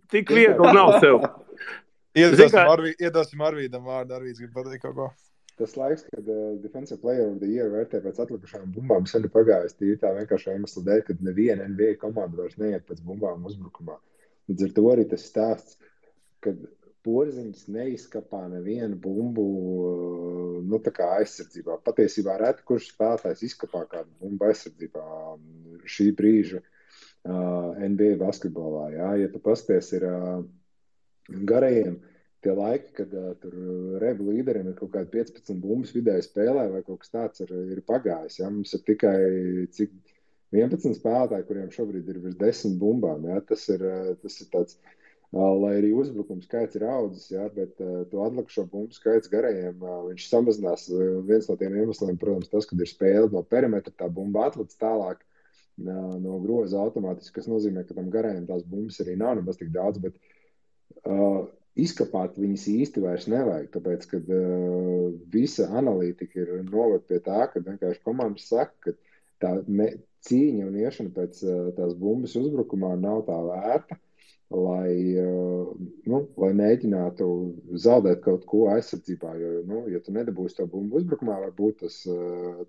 Tik viegli nav sev. Iedosim Arvīdam vārdu. Arvīds grib pateikt kaut ko. Tas laiks, kad Defensive Player of the Year vērtē pēc atlikušām bumbām, sen ir pagājis tīri tā vienkārši iemesla dēļ, kad neviena NBA komanda vairs neiet pēc bumbām uzbrukumā. Līdz ar to arī tas stāsts, kad Porziņš neizkapā nevienu bumbu tā kā aizsardzībā. Patiesībā reti, kurš spēlētājs izkapā kādu bumbu aizsardzībā šī brīža NBA basketbolā. Jā. Ja tu pasties ir garajiem tie laiki, kad tur rebu līderiem ir kaut kādi 15 bumbas vidēji spēlē vai kaut kas tāds ir pagājis. Ja? Mums ir tikai 11 spēlētāji, kuriem šobrīd ir virs 10 bumbām. Ja? Tas ir tāds, lai arī uzbrukums skaits ir audzis, ja? Bet to atlikušo bumbu skaits garajiem viņš samazinās. Viens no tiem iemesliem, protams, tas, kad ir spēle no perimetra, tā bumba atlec tālāk no groza automātiski, kas nozīmē, ka tam garajiem tās bumbas arī nav nemaz tik daudz, bet izkapāt viņas īsti vairs nevajag, tāpēc, kad visa analītika ir noved pie tā, ka vienkārši komandas saka, ka tā cīņa un iešana pēc tās bumbas uzbrukumā nav tā vērta, lai mēģinātu zaudēt kaut ko aizsardzībā, jo, ja tu nedabūsi to bumbu uzbrukumā, varbūt tas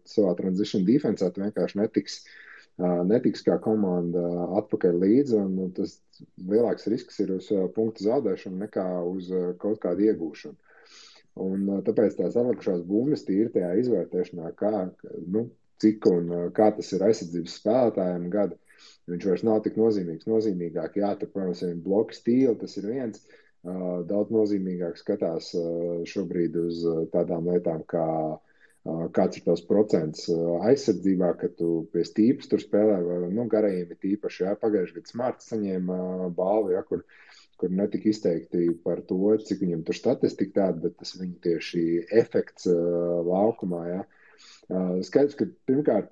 savā transition defensā tu vienkārši netiks kā komanda atpakaļ līdzi, un tas lielāks risks ir uz punktu zaudēšanu nekā uz kaut kādu iegūšanu. Un tāpēc tās atlikušās bumbas tīri tajā izvērtēšanā, cik un kā tas ir aizsardzības spēlētājiem gada, viņš vairs nav tik nozīmīgs. Nozīmīgāk, tur, protams, ir bloku stīli, tas ir viens. Daudz nozīmīgāk skatās šobrīd uz tādām lietām, kā kāds ir tavs procents aizsardzībā, ka tu pie stīpas tur spēlē, vai garajiem ir tīpaši, pagājuši gadu Smarts saņēma balvu, kur netika izteikti par to, cik viņam tur statistika tāda, bet tas viņa tieši efekts laukumā, Skaidrs, ka pirmkārt,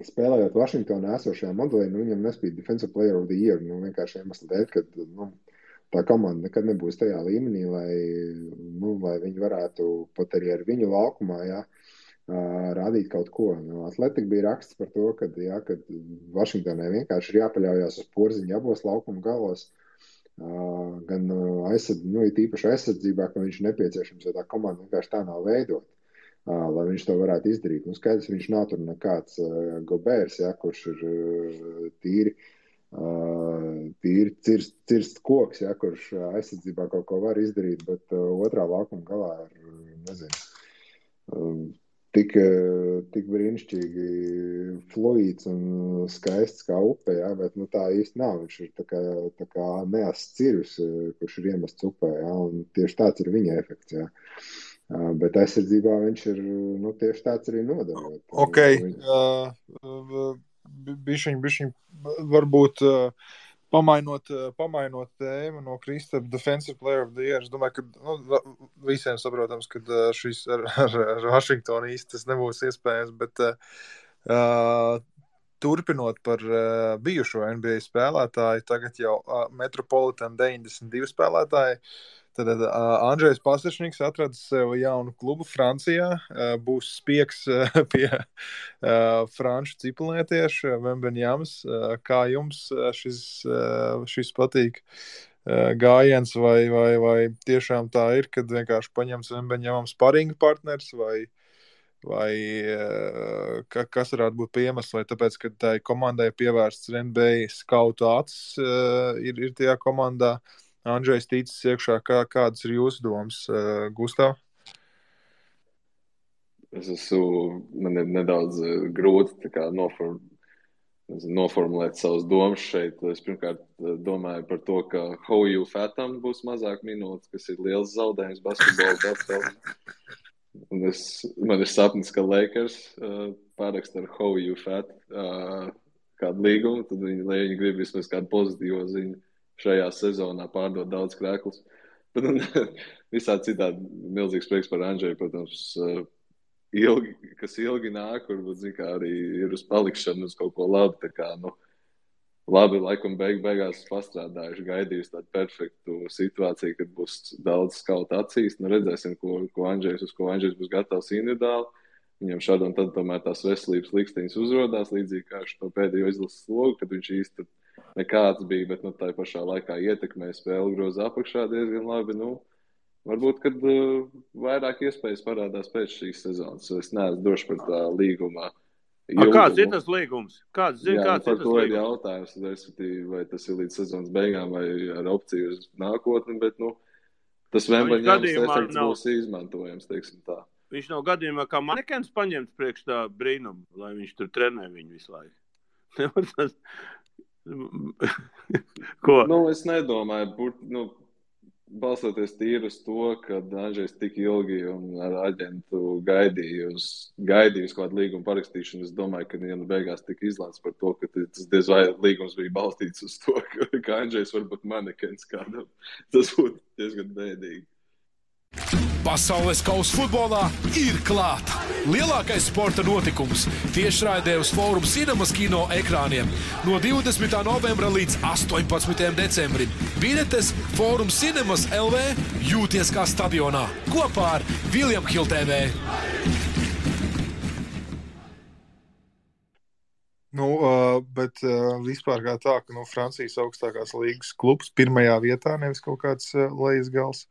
spēlējot Vašingtonā esošajā modelī, viņam nespīd Defensive Player of the Year, vienkārši iemesli dēļ, ka tā komanda nekad nebūs tajā līmenī, lai viņi varētu pat arī ar viņu laukumā, rādīt kaut ko. Atletika bija raksts par to, kad Vašingtonai vienkārši ir jāpaļaujās uz Porziņu abos laukuma galos, gan tīpaši aizsardzībā, ka viņš ir nepieciešams, jo tā komanda vienkārši tā nav veidot. lai viņš to varētu izdarīt. Nu, skaidrs, viņš nav tur nekāds Gobērs, ja, kurš ir tīri cirst koks, ja, kurš aizsardzībā kaut ko var izdarīt, bet otrā laukuma galā ir, nezinu, tik brīnišķīgi fluīds un skaists kā upe, ja, bet tā īsti nav. Viņš ir tā kā neasts cirvis, kurš ir iemests upē, ja, un tieši tāds ir viņa efekts. Ja. Bet aizsardzībā viņš ir tieši tāds arī nodarot. Ok, bišķiņ varbūt pamainot tēmu no Kristapa Defensive Player of the Year. Es domāju, ka visiem saprotams, ka šis ar Washingtonu īsti tas nebūs iespējams, bet turpinot par bijušo NBA spēlētāju, tagad jau Metropolitan 92 spēlētāji, tad Andrzejs Pasečniks atradis sev jaunu klubu Francijā, būs spiegs pie franču cipelnietieša Wembeņams. Kā jums šis patīk gājiens, vai tiešām tā ir, kad vienkārši paņems Wembeņamam sparinga partners, vai kas varētu būt iemesls, vai tāpēc, ka tai komandai pievērsts NBA skautu acis ir tajā komandā. Andrzejs ticis iekšā, kādas ir jūsu domas, Gustav? Man ir nedaudz grūti noformulēt savas domas šeit. Es pirmkārt domāju par to, ka Hoju Fatam būs mazāk minūtes, kas ir liels zaudējums basketbola pasaulē. Man ir sapnis, ka Lakers paraksta ar Hoju Fat kādu līgumu, tad viņi grib vismaz kādu pozitīvo ziņu. Šajā sezonā pārdot daudz krēklus. Bet visādi citādi milzīgs prieks par Andžeju, protams, kas ilgi nāk, varbūt, arī ir uz palikšanu uz kaut ko labi. Tā kā, labi, laikam beigās pastrādājuši, gaidījuši tādu perfektu situāciju, kad būs daudz skautu acīs. Redzēsim, uz ko Andžejs būs gatavs individuāli. Viņam šādi un tad tomēr tās veselības liksteņas uzrodās, līdzīgi kā šo pēdējo izlases slogu, kad viņš īsti nekāds bija, bet tā pašā laikā ietekmē spēli groza apakšā diezgan labi. Varbūt, kad vairāk iespējas parādās pēc šīs sezonas. Es neesmu droši par tā līgumā. Kāds ir tas līgums? Kāds ir tas līgums? Jautājums, vai tas ir līdz sezonas beigām vai ar opciju uz nākotni, bet tas Wembeņams efekts būs izmantojams, teiksim tā. Viņš nav gadījumā kā manekens paņemts priekš tā brīnumu, lai viņš tur trenē viņu visu laiku. Ko? Es nedomāju, balstoties tīri uz to, ka Andžejs tik ilgi un ar aģentu gaidīju kādu līgumu parakstīšanu, es domāju, ka beigās tika izlēmts par to, ka tas diez vai līgums bija balstīts uz to, ka Andžejs var būt manekens kādam. Tas būtu diezgan bēdīgi. Pasaules kausa futbolā ir klāta. Lielākais sporta notikums tiešraidē uz Forum Cinemas kino ekrāniem no 20. novembra līdz 18. decembrim. Biļetes Forum Cinemas LV jūties kā stadionā kopā ar William Hill TV. Bet vispār kā tā, ka Francijas augstākās līgas klubs pirmajā vietā, nevis kaut kāds lejas gals.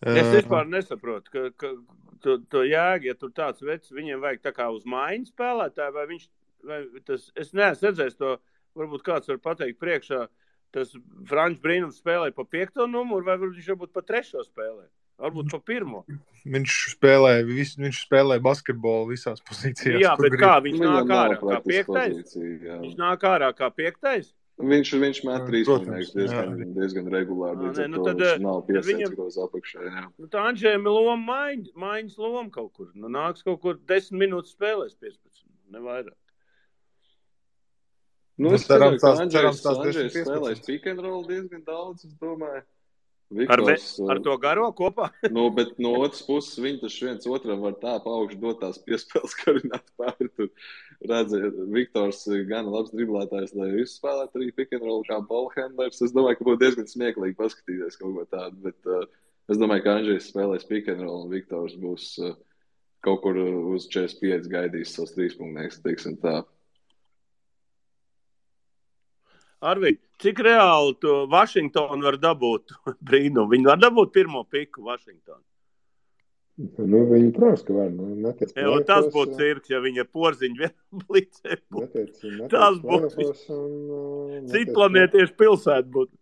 Es vispār nesaprotu, ka to jēgu, ja tur tāds vecs, viņiem vajag tā kā uz maiņu spēlētāju, es neesmu redzējis to, varbūt kāds var pateikt priekšā, tas franču brīnums spēlē pa 5. numuru, vai viņš varbūt pa 3. spēlē, varbūt pa 1. Viņš spēlē basketbolu visās pozīcijās. Jā, bet kā, viņš nāk ārā kā 5. Viņš nāk ārā kā 5. Viņš met 3 punktus diezgan regulāri, viņš nav piesēdz groz apakšā. Jā. Tā Andžejam ir loma maiņas loma kaut kur. Nāks kaut kur 10 minūtes spēlēs 15, nevairāk. Es ceru, ka Andžejs spēlēs pick and roll diezgan daudz, es domāju. Viktors, ar to garo kopā? Bet no otras puses viņi taču viens otram var tā paaugšu dot tās piespēles karināt pāri. Tur redzēt, Viktors gan labs driblētājs, lai izspēlētu arī pick and roll kā ballhandlers. Es domāju, ka būtu diezgan smieklīgi paskatīties kaut ko tādu, bet es domāju, ka Andžejs spēlēs pick and roll un Viktors būs kaut kur uz 45 gaidījis savus 3 punktnieks, teiksim tā. Arvi, cik reāli to Washingtonu var dabūt brīnumu? Viņi var dabūt 1. piku Washingtonu? Viņi, protams, ka var. Netiec plēfos. Tas būtu cirks, ja viņa porziņu vienam blicē būtu. Tas būtu citplanētiešu pilsēta būtu.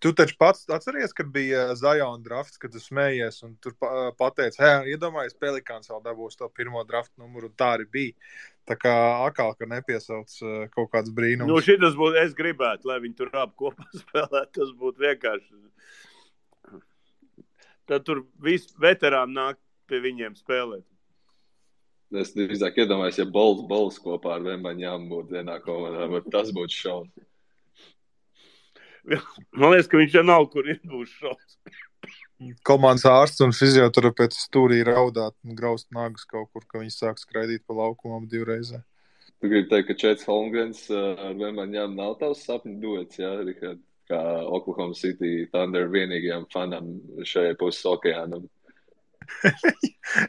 Tu taču pats atceries, kad bija Zion drafts, kad tu smējies un tur pateici, iedomājies, Pelikāns vēl dabūs to pirmo draftu numuru, un tā arī bija. Tā kā akāl, ka nepiesauc kaut kāds brīnums. Šitas būtu, es gribētu, lai viņi tur abi kopā spēlētu, tas būtu vienkārši. Tad tur visi veterāni nāk pie viņiem spēlēt. Es drīzāk iedomājos, ja Bols kopā ar Vembaņām būtu vienā komandā, bet tas būtu šaun. Man liekas, ka viņš jau nav, kur ir būs šaus. Komandas ārsts un fizioterapeits stūrī raudāt un graust nagus kaut kur, ka viņi sāk skraidīt pa laukumam divreizē. Tu gribi teikt, ka Čets Holmgrens ar Vembaņām nav tavs sapņu duets, jā, Rihard? Kā Oklahoma City Thunder vienīgajām fanam šajā puses okeānam.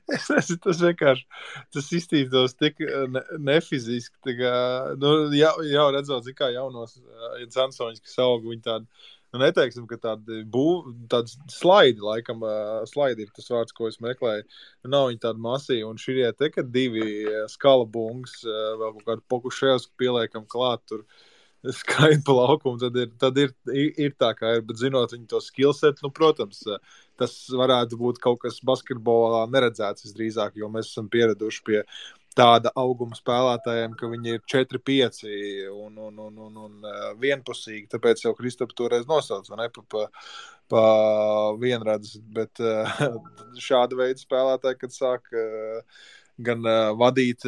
Es nezinu, tas vienkārši, tas iztīstos tik nefiziski, tā kā, jau redzot, kā jaunos Jansoņus, kas aug, viņi tādi, neteiksim, ka tādi slaidi, laikam, slaidi ir tas vārds, ko es meklēju, nav viņi tādi masīvi, un širie te, kad divi skalabungs, vēl kaut kādu Pokuševsku pieliekam klāt tur, skaidri pa laukumu, tad ir tā, kā ir, bet zinot viņu to skillset, protams, tas varētu būt kaut kas basketbolā neredzēts visdrīzāk, jo mēs esam pieraduši pie tāda auguma spēlētājiem, ka viņi ir 4-5 un vienpusīgi, tāpēc jau Kristaps toreiz nosauc, vai ne, pa vienredzes, bet šāda veida spēlētāji, kad sāk gan vadīt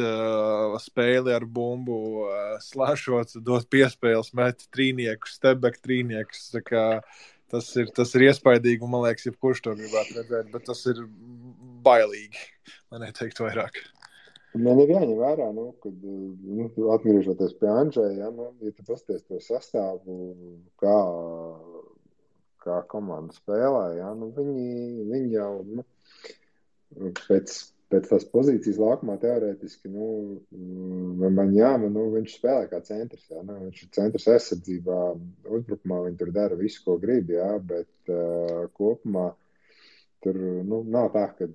spēli ar bumbu, slēšot, dot piespēles, met trīniekus, stepback trīniekus, tā kā tas ir iespaidīgi, un man liekas, jebkurš to gribētu redzēt, bet tas ir bailīgi, lai neteikt vairāk. Man ir jāņem vērā, kad atgriežoties pie Andžeja, ja tu pasties to sastāvu, kā komanda spēlē, viņi jau pēc tās pozīcijas laukumā teorētiski, viņš spēlē kā centrs, viņš ir centrs aizsardzībā, uzbrukumā viņi tur dara visu, ko grib, bet kopumā tur, nav tā, kad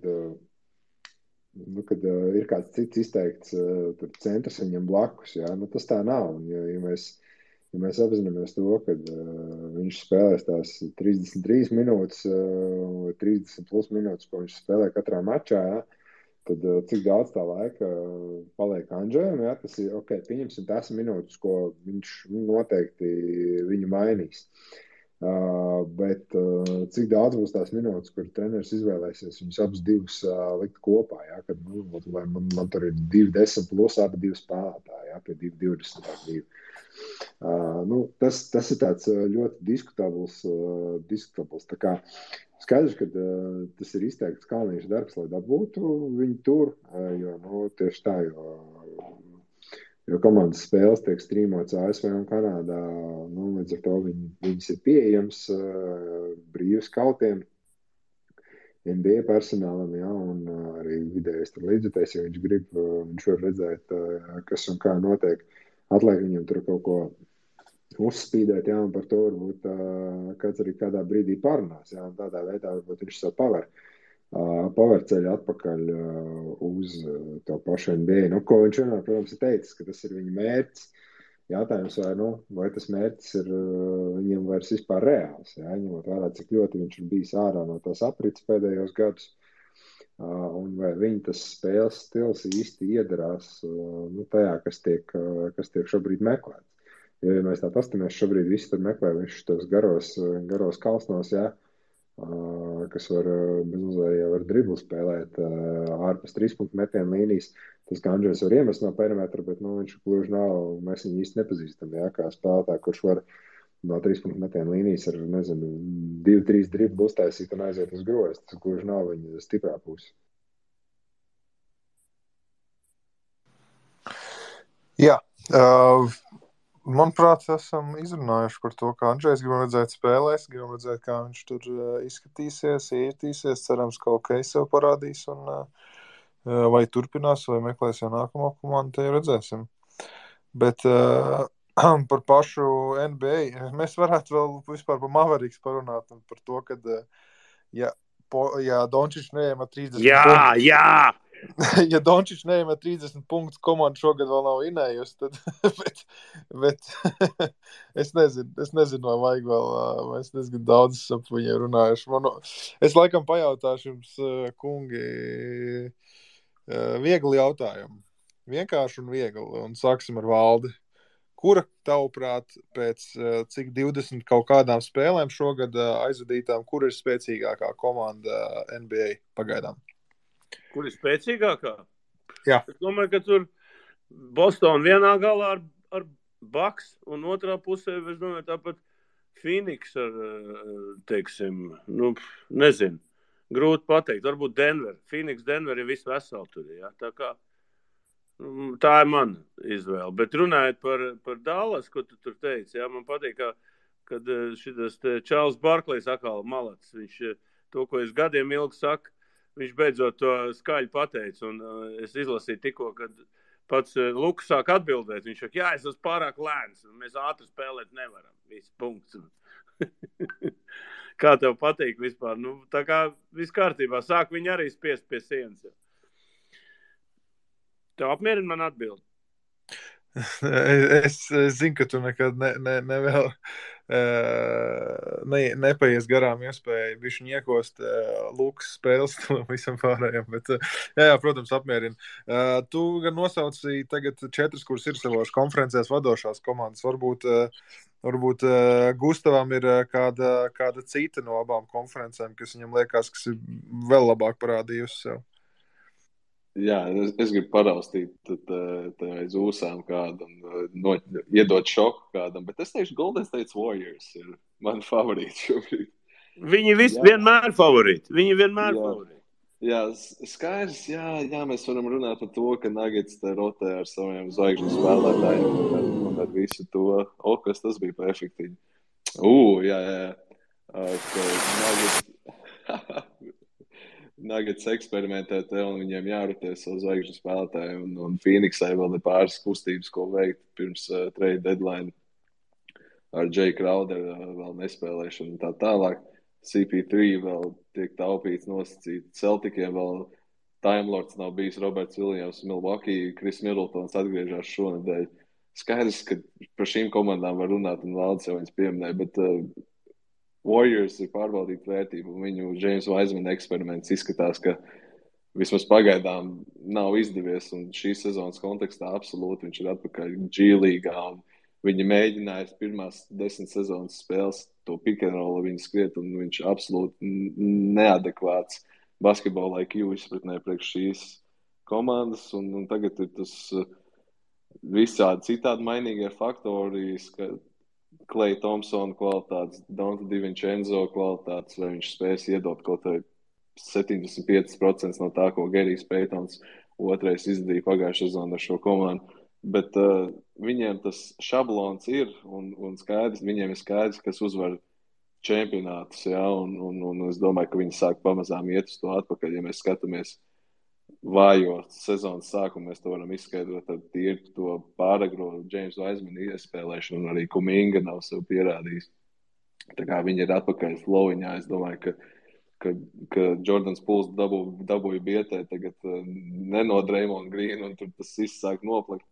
ir kāds cits izteikts tur centrs viņam blakus, tas tā nav, un ja mēs apzināmies to, kad viņš spēlēs tās 33 minūtes, 30 plus minūtes, ko viņš spēlē katrā mačā, tad cik daudz tā laika paliek Andžejam, tas ir, pieņemsim tās minūtes, ko viņš noteikti viņu mainīs. Bet cik daudz būs tās minūtes, kur treneris izvēlēsies viņus abus divus likt kopā, kad, lai man tur ir 2-10 plus abi divi spēlētāji, pie 2-20. Tas ir tāds ļoti diskutabls. Tā kā skaidrs, ka tas ir izteikts Kalniņš darbs, lai dabūtu viņu tur, jo tieši tā, jo komandas spēles tiek strīmots ASV un Kanādā, līdz ar to viņas ir pieejams brīvi skautiem, NBA personālam, un arī vidējais tur līdzekļs, ja viņš grib, viņš var redzēt, kas un kā notiek. Atliek viņam tur kaut ko uzspīdēt, un par to varbūt kāds arī kādā brīdī parunās, un tādā veidā varbūt viņš savu paverceļu atpakaļ uz to pašu NBA. Ko viņš vienmēr, protams, ir teicis, ka tas ir viņa mērķis. Jautājums, vai tas mērķis ir viņam vairs vispār reāls, ņemot vērā, cik ļoti viņš ir bijis ārā no tās aprits pēdējos gadus. Un vai viņa tas spēles stils īsti iedarās tajā, kas tiek šobrīd meklēts. Ja mēs tā pastamies, šobrīd visi tur meklē viņš tos garos kalsnos, kas var bezmazliet ar driblu spēlēt ārpus 3-punktu metienu līnijas. Tas, kā Andžejs var iemest no perimetra, bet viņš gluži nav, mēs viņu īsti nepazīstam, kā spēlētāju, kurš var no 3-punktu metienu līnijas ar, 2-3 driblu uztaisīt un aiziet uz grozu. Tas gluži nav viņa stiprā puse. Jā, manuprāt, esam izrunājuši par to, kā Andžejs gribam redzēt spēlēs, gribam redzēt, kā viņš tur izskatīsies, ietīsies, cerams, ka sev parādīs un vai turpinās, vai meklēs jau nākamo komandu, te jau redzēsim. Bet par pašu NBA, mēs varētu vēl vispār par Mavericks parunāt un par to, kad, ja ja Dončičs neiemet 30 Jā, punktus. jā! Ja Dončičs neiemet 30 punktus, komanda šogad vēl nav vinējusi, tad, bet es nezinu, vai vajag vēl, mēs diezgan daudz ap viņiem runājuši. Es laikam pajautāšu jums, kungi, viegli jautājumu. Vienkārši un viegli, un sāksim ar Valdi. Kura, tavuprāt, pēc cik 20 kaut kādām spēlēm šogad aizvadītām, kur ir spēcīgākā komanda NBA pagaidām? Kur ir spēcīgākā? Jā. Es domāju, ka tur Boston vienā galā ar Bucks, un otrā pusē, es domāju, tāpat Phoenix ar, teiksim, nezinu, grūti pateikt. Varbūt Denver. Phoenix, Denver ir viss veseli tur, jā. Tā ir mana izvēle. Bet runājot par Dallas, ko tu tur teici, jā, man patīk, kad šitas Čārls Barklejs atkal malats. Viņš to, ko es gadiem ilgi saku, viņš beidzot to skaļi pateica. Un es izlasīju tikko, kad pats Lukas sāk atbildēt. Viņš saka, jā, es esmu pārāk lēns, un mēs ātri spēlēt nevaram. Viss punkts. Kā tev patīk vispār? Tā kā viss kārtībā. Sāk viņi arī spiest pie sienas. Tev apmierina man atbildi? Es zinu, ka tu nekad nepaies garām iespēju bišķi niekost Lukas spēles visam pārējiem, bet jā, protams, apmierina. Tu gan nosauci tagad 4, kuras ir savās konferencēs vadošās komandas. Varbūt Gustavam ir kāda cita no abām konferencēm, kas viņam liekas, kas ir vēl labāk parādījusi sev. Jā, es gribu paraustīt aiz ūsām kādu un iedot šoku kādam, bet es teikšu, Golden State Warriors ir mani favorīti šobrīd. Viņi vienmēr favorīti. Jā, skaidrs, jā, mēs varam runāt par to, ka Nuggets te rotē ar saviem zvaigžņu spēlētājiem un ar visu to. Kas tas bija pa efektīvi? Jā. Nuggets eksperimentē te un viņiem jārotē savu zvaigžņu spēlētāju un Phoenixai vēl ir pāris kustības, ko veikt pirms trade deadline ar Jay Crowder vēl nespēlēšanu un tā tālāk. CP3 vēl tiek taupīts nosacīt. Celticiem vēl Time Lords nav bijis Roberts Williams, Milwaukee, Chris Middletons atgriežās šonedēļ. Skaidrs, ka par šīm komandām var runāt un Valdes jau viņas pieminēja, bet Warriors ir pārbaudīta vērtība, un viņu James Wiseman eksperiments izskatās, ka vismaz pagaidām nav izdevies, un šīs sezonas kontekstā absolūti viņš ir atpakaļ G-līgā, un viņi mēģināja pirmās 10 sezonas spēles to pick and roll viņu skriet, un viņš absolūti neadekvāts basketbola IQ izpratnē priekš šīs komandas, un tagad ir tas visādi citādi mainīgie faktori, ka Klay Thompson kvalitātes, Dante DiVincenzo kvalitātes, vai viņš spēs iedot kaut vai 75% no tā, ko Gerijs Paytons otrais izdarīja pagājušajā sezonā ar šo komandu. Bet viņiem tas šablons ir, un skaidrs, viņiem ir skaidrs, kas uzvar čempionātus, jā, un es domāju, ka viņi sāk pamazām iet uz to atpakaļ, ja mēs skatāmies vājo sezonas sākumu, mēs to varam izskaidrot ar tīri to pāragro James Wiseman iespēlēšanu, un arī Kuminga nav sev pierādījis. Tā kā viņi ir atpakaļ flowiņā, es domāju, ka Jordans Pools dabūja bietē tagad no Draymond Green, un tur tas viss sāk noplakt.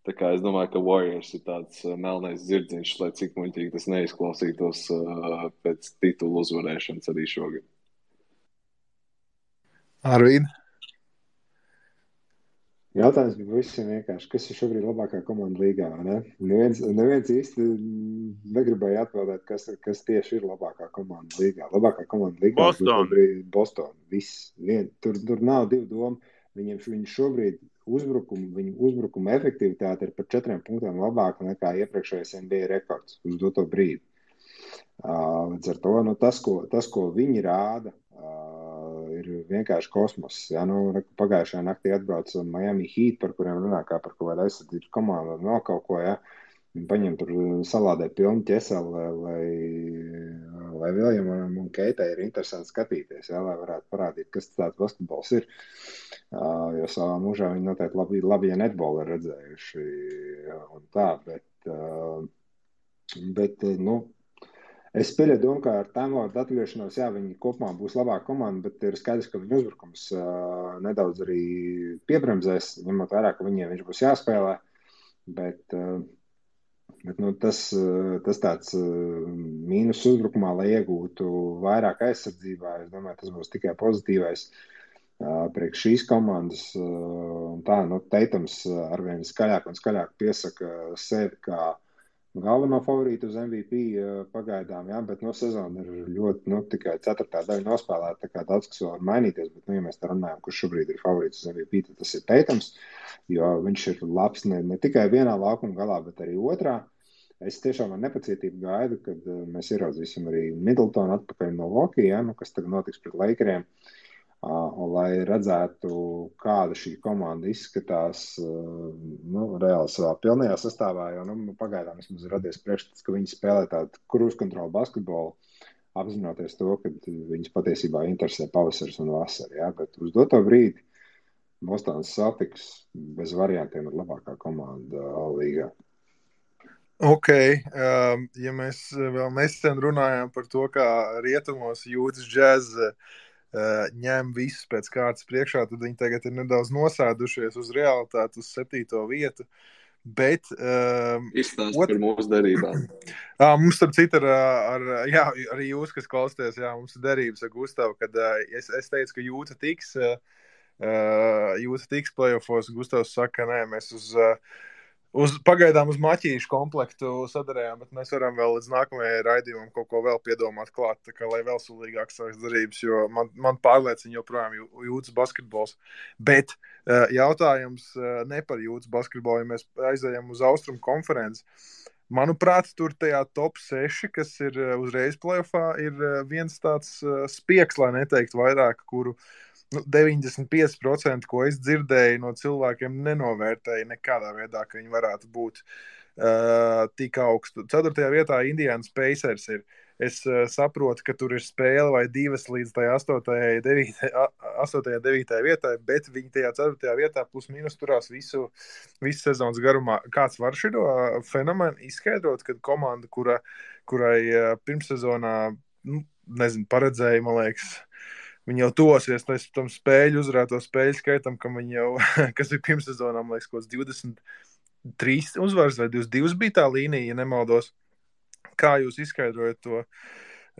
Tā kā es domāju, ka Warriors ir tāds melnais zirdziņš, lai cik muļķīgi tas neizklausītos pēc titulu uzvarēšanas arī šogad. Arvīd? Jautājums bija visiem vienkārši, kas ir šobrīd labākā komanda līgā, vai ne? Neviens īsti negribēja atbildēt, kas tieši ir labākā komanda līgā. Labākā komanda līgā Boston. Viss. Tur nav divu domu. Viņi šobrīd viņu uzbrukuma efektivitāte ir par 4 punktiem labāka nekā iepriekšējais NBA rekords uz doto brīdi. Līdz ar to, tas, ko viņi rāda, ir vienkārši kosmos. Ja? Pagājušajā naktī atbrauca Miami Heat, par kuriem runā kā par kaut kādu aizsardzības komandu un vēl kaut ko, ja? Viņi paņem tur salādē pilnu ķeseli, lai Viljamam un Keitai ir interesanti skatīties, ja? Lai varētu parādīt, kas tāds basketbols ir. Jo savā mūžā viņi noteikti labi ja netbolu ir redzējuši un tā, bet Es pieļauju domu, ka ar tām vārdu atgriešanos, jā, viņi kopumā būs labāka komanda, bet ir skaidrs, ka viņu uzbrukums nedaudz arī piebremzēs, ņemot vērā, ka viņiem viņš būs jāspēlē. Bet nu, tas tāds mīnus uzbrukumā, lai iegūtu vairāk aizsardzībā, es domāju, tas būs tikai pozitīvais priekš šīs komandas. Tā, nu, Teitams arvien skaļāk un skaļāk piesaka sevi kā galveno favorītu uz MVP pagaidām, jā, bet sezona ir ļoti, tikai 4. daļa nospēlēta, tā kā daudz kas vēl var mainīties, bet, ja mēs tā runājam, kurš šobrīd ir favorīts uz MVP, tad tas ir Teitams, jo viņš ir labs ne tikai vienā laukuma galā, bet arī otrā. Es tiešām ar nepacietību gaidu, kad mēs ieraudzīsim arī Middletonu atpakaļ no Milwaukee, jā, kas tagad notiks pret Lakeriem. Un, lai redzētu, kāda šī komanda izskatās reāli savā pilnajā sastāvā, jo pagaidām vismaz ir radies priekšstats, ka viņi spēlē tādu cruise control basketbolu, apzinoties to, ka viņus patiesībā interesē pavasaris un vasara. Ja? Bet uz doto brīdi Bostonas Celtics bez variantiem ir labākā komanda līgā. Ok, ja mēs vēl nesen runājām par to, kā rietumos jūtas Jazz ņem visus pēc kārtas priekšā, tad viņi tagad ir nedaudz nosēdušies uz realitāti, uz 7. vietu. Bet izstāst par mūsu derībām. Mums starp citu arī jūs, kas klausties, mums ir derības ar Gustavu, kad es teicu, ka Jūta tiks playoffos. Gustavs saka, nē, mēs pagaidām uz maķīšu komplektu sadarējām, bet mēs varam vēl līdz nākamajai raidījumam kaut ko vēl piedomāt klāt, tā kā lai vēl sulīgāk savas darības, jo man pārliecina joprojām Jūtas basketbols. Bet jautājums ne par Jūtas basketbolu, ja mēs aizējam uz Austrumu konferenci. Manuprāt, tur tajā top 6, kas ir uzreiz playoffā, ir viens tāds spiegs, lai neteikt vairāk, kuru 95%, ko es dzirdēju no cilvēkiem, nenovērtēju nekādā veidā, ka viņi varētu būt tik augstu. 4. vietā Indiana Pacers ir. Es saprotu, ka tur ir spēle vai 2 līdz tai 8. 9. vietai, bet viņi tajā 4. vietā plus mīnus turās visu sezonas garumā. Kāds var šito fenomenu izskaidrot, kad komanda, kurai pirmssezonā, paredzēja, man liekas, viņi jau tosies tam uzvarēto spēļu skaitam, kas ir pirmssezonā, man liekas, kaut 23 uzvaras vai 22 bija tā līnija, ja nemaldos. Kā jūs izskaidrojat to?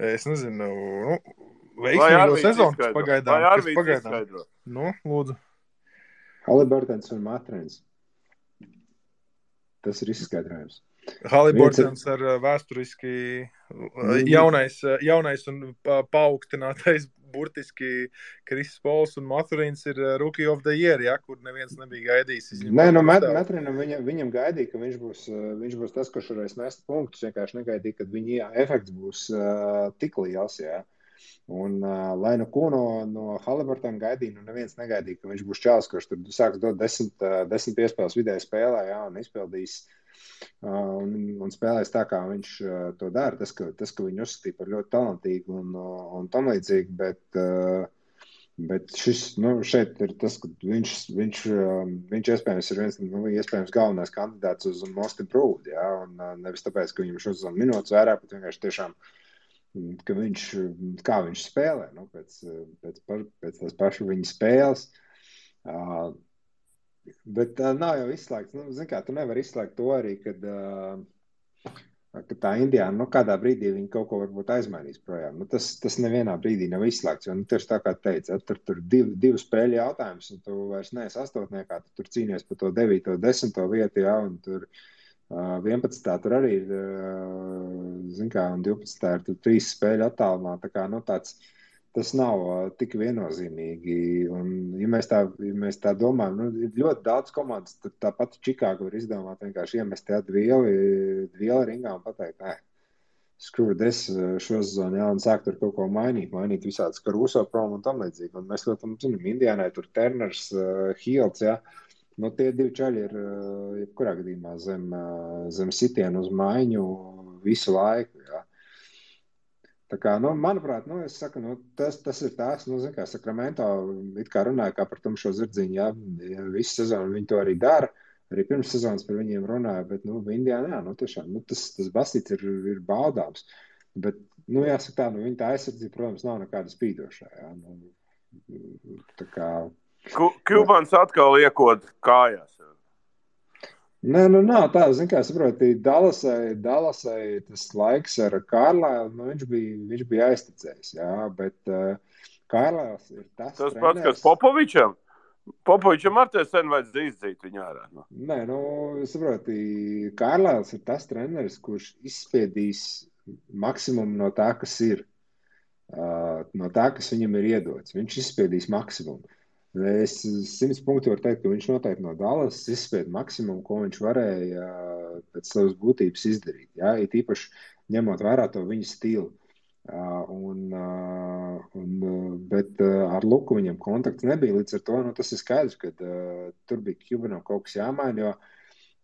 Es nezinu, veiksmīgo sezonas pagaidām. Vai Arvīds izskaidro? Lūdzu. Haliburtons un Matrēns. Tas ir izskaidrojums. Haliburtons ar vēsturiski jaunais un paaugstinātais burtiski Kris Pols un Maturīns ir Rookie of the Year, kur neviens nebija gaidījis. Nē, Maturīnam viņam gaidīja, ka viņš būs tas, kurš varēs nest punktus. Vienkārši negaidīja, ka viņa efekts būs tik liels, jā. Un lai ko no Haliburtona gaidīja, neviens negaidīja, ka viņš būs čāls, kurš tur sāks dot 10 piespēles vidēji spēlē, jā, un izpildīs un spēlēs tā, kā viņš to dara. Tas, ka viņu uzskatīja par ļoti talantīgu un tam līdzīgi, bet šis, šeit ir tas, ka viņš iespējams ir viens, iespējams galvenais kandidāts uz Most Improved, jā, un nevis tāpēc, ka viņam šos minūtes vairāk, bet vienkārši tiešām, ka kā viņš spēlē, pēc tās pašu viņa spēles. Bet nav jau izslēgts. Zin kā, tu nevar izslēgt to arī, kad tā Indiāna, kādā brīdī viņi kaut ko varbūt aizmainīs projām. Tas nevienā brīdī nav izslēgts, jo tieši tā kā teica, tur divu spēļu jautājums, un tu vairs neesi astotniekā, tu tur cīnies par to 9. 10. vietu, jā, un tur 11. tur arī ir, zin kā, un 12. ir tur 3 spēļu attālumā, tā kā, tas nav tik viennozīmīgi, un ja mēs tā domājam, ir ļoti daudz komandas, tāpat Čikāga var izdomāt vienkārši iemest tādu vielu ringā un pateikt, screw this šo sezonu, jā, un sākt tur kaut ko mainīt visādas Caruso prom un tam līdzīgi, un mēs ļoti zinām, Indiānai tur Turners, Hields, jā, tie 2 čaļi ir, jebkurā gadījumā zem sitienu uz maiņu visu laiku, jā. Tā kā, manuprāt, es saku, tas ir tās, zin kā, Sacramento it kā runāja kā par tumšo zirdziņu, jā, visu sezonu viņi to arī dara, arī pirms sezonas par viņiem runāja, bet, Indiāna, jā, tiešām, tas basīts ir baudāms. Bet, jāsaka tā, viņa tā aizsardzība, protams, nav nekāda spīdošā. Jā. Tā kā... Kubans atkal iekod kājās. Nē, nav tā, kā saproti, Dallasai tas laiks ar Kārlailu, viņš bija aizticējis, jā, bet Kārlails ir tas treneris... Tas pats, kas Popovičam? Popovičam ar te sen vajadzēja izdzīt viņu ārā. No? Nē, saproti, Kārlails ir tas treneris, kurš izspiedīs maksimumu no tā, kas ir, no tā, kas viņam ir iedots. Viņš izspiedīs maksimumu. Es 100 punktu varu teikt, ka viņš noteikti no Dallas izspied maksimumu, ko viņš varēja pēc savas būtības izdarīt. Jā, it īpaši ņemot vērā to viņa stilu. Bet ar Luku viņam kontakts nebija. Līdz ar to tas ir skaidrs, ka tur bija Cubanam kaut kas jāmaina, jo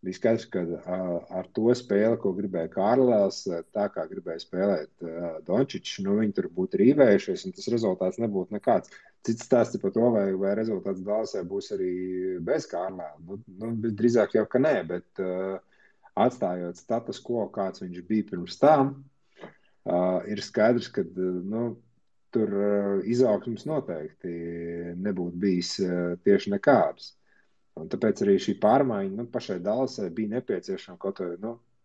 bija skaidrs, ka ar to spēli, ko gribēja Kārlails, tā kā gribēja spēlēt Dončičs, viņi tur būtu rīvējušies, un tas rezultāts nebūtu nekāds. Cits stāsts par to, vai rezultāts Dallasai būs arī bez Kārlaila. Drīzāk jau, ka nē, bet atstājot status quo, kāds viņš bija pirms tam, ir skaidrs, ka tur izaugsmes noteikti nebūtu bijis tieši nekādas. Un tāpēc arī šī pārmaiņa pašai Dallasai bija nepieciešama kaut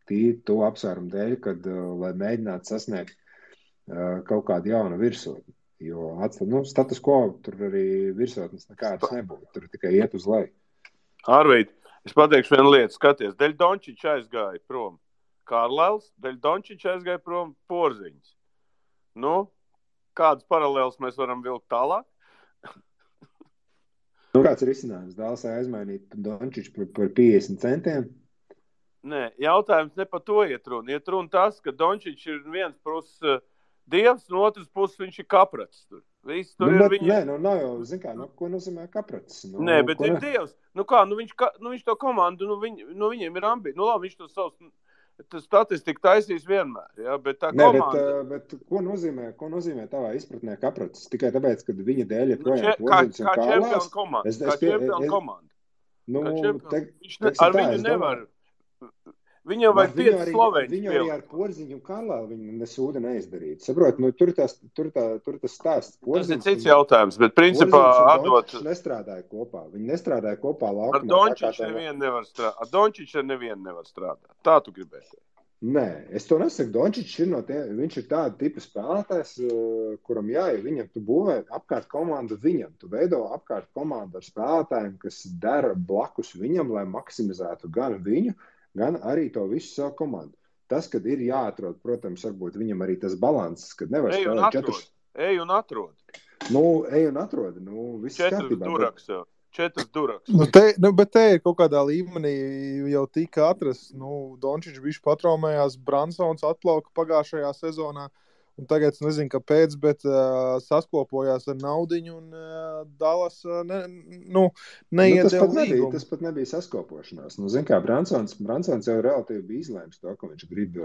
tīri to apsvērumu dēļ, kad, lai mēģinātu sasniegt kaut kādu jaunu virsotni. Jo status quo tur arī virsotnes nekādas nebūtu. Tur tikai iet uz leju. Arvīd, es pateikšu vienu lietu. Skaties, Deļ Dončičs aizgāja prom Kārlails, Deļ Dončičs aizgāja prom Porziņš. Kādas paralēlas mēs varam vilkt tālāk? Kāds ir risinājums? Dallasai aizmainīt Dončiču par 50 centiem? Nē, jautājums ne par to iet runa. Iet runa tas, ka Dončičs ir viens puses dievs, no otras puses viņš ir kaprats. Viss tur ir viņa... Nē, nav jau, ko nozīmē kaprats? Nē, bet ir dievs. Viņš to komandu, viņiem ir ambīcija. Labi, viņš to savus statistiku taisīs vienmēr. Ja? Bet tā komanda... Bet ko nozīmē tavā izpratnē kaprats? Tikai tāpēc, ka viņa dēļ ir projām Porziņš un Kārlails? Kā čempionu komanda. Ar viņu nevar... Viņam vajag 5 slovēņus. Viņu arī ar Porziņu un Kārlailu viņu nesūda neizdarīt. Saprot, tur tas stāsts. Tas ir cits jautājums, bet principā atdot... nestrādāja kopā. Viņi nestrādāja kopā laukumā. Ar Dončiču nevienu nevar strādāt. Ar Dončiču nevienu nevar strādāt. Tā tu gribēsi. Nē, es to nesaku. Dončičs viņš ir tāda tipa spēlētājs, kuram viņam tu būvē apkārt komandu viņam. Tu veido apkārt komandu ar spēlētājiem, kas dara blakus viņam, lai maksimizētu gan viņu, gan arī to visu savu komandu. Tas, kad ir jāatrod, protams, varbūt viņam arī tas balanss, kad nevar spēlēt 4. Ej un atrod. Ej un atrod. Viss 4 duraks jau. 4 duraks. Bet te ir kaut kādā līmenī jau tika atrasts. Dončičs bišķi patraumējās, Bransons atplauka pagājušajā sezonā. Un tagad es nezinu, kāpēc, bet saskopojās ar naudiņu un Dallas neiedeva līgumu. Tas pat nebija saskopošanās. Bransons jau relatīvi bija izlēms to, ka viņš grib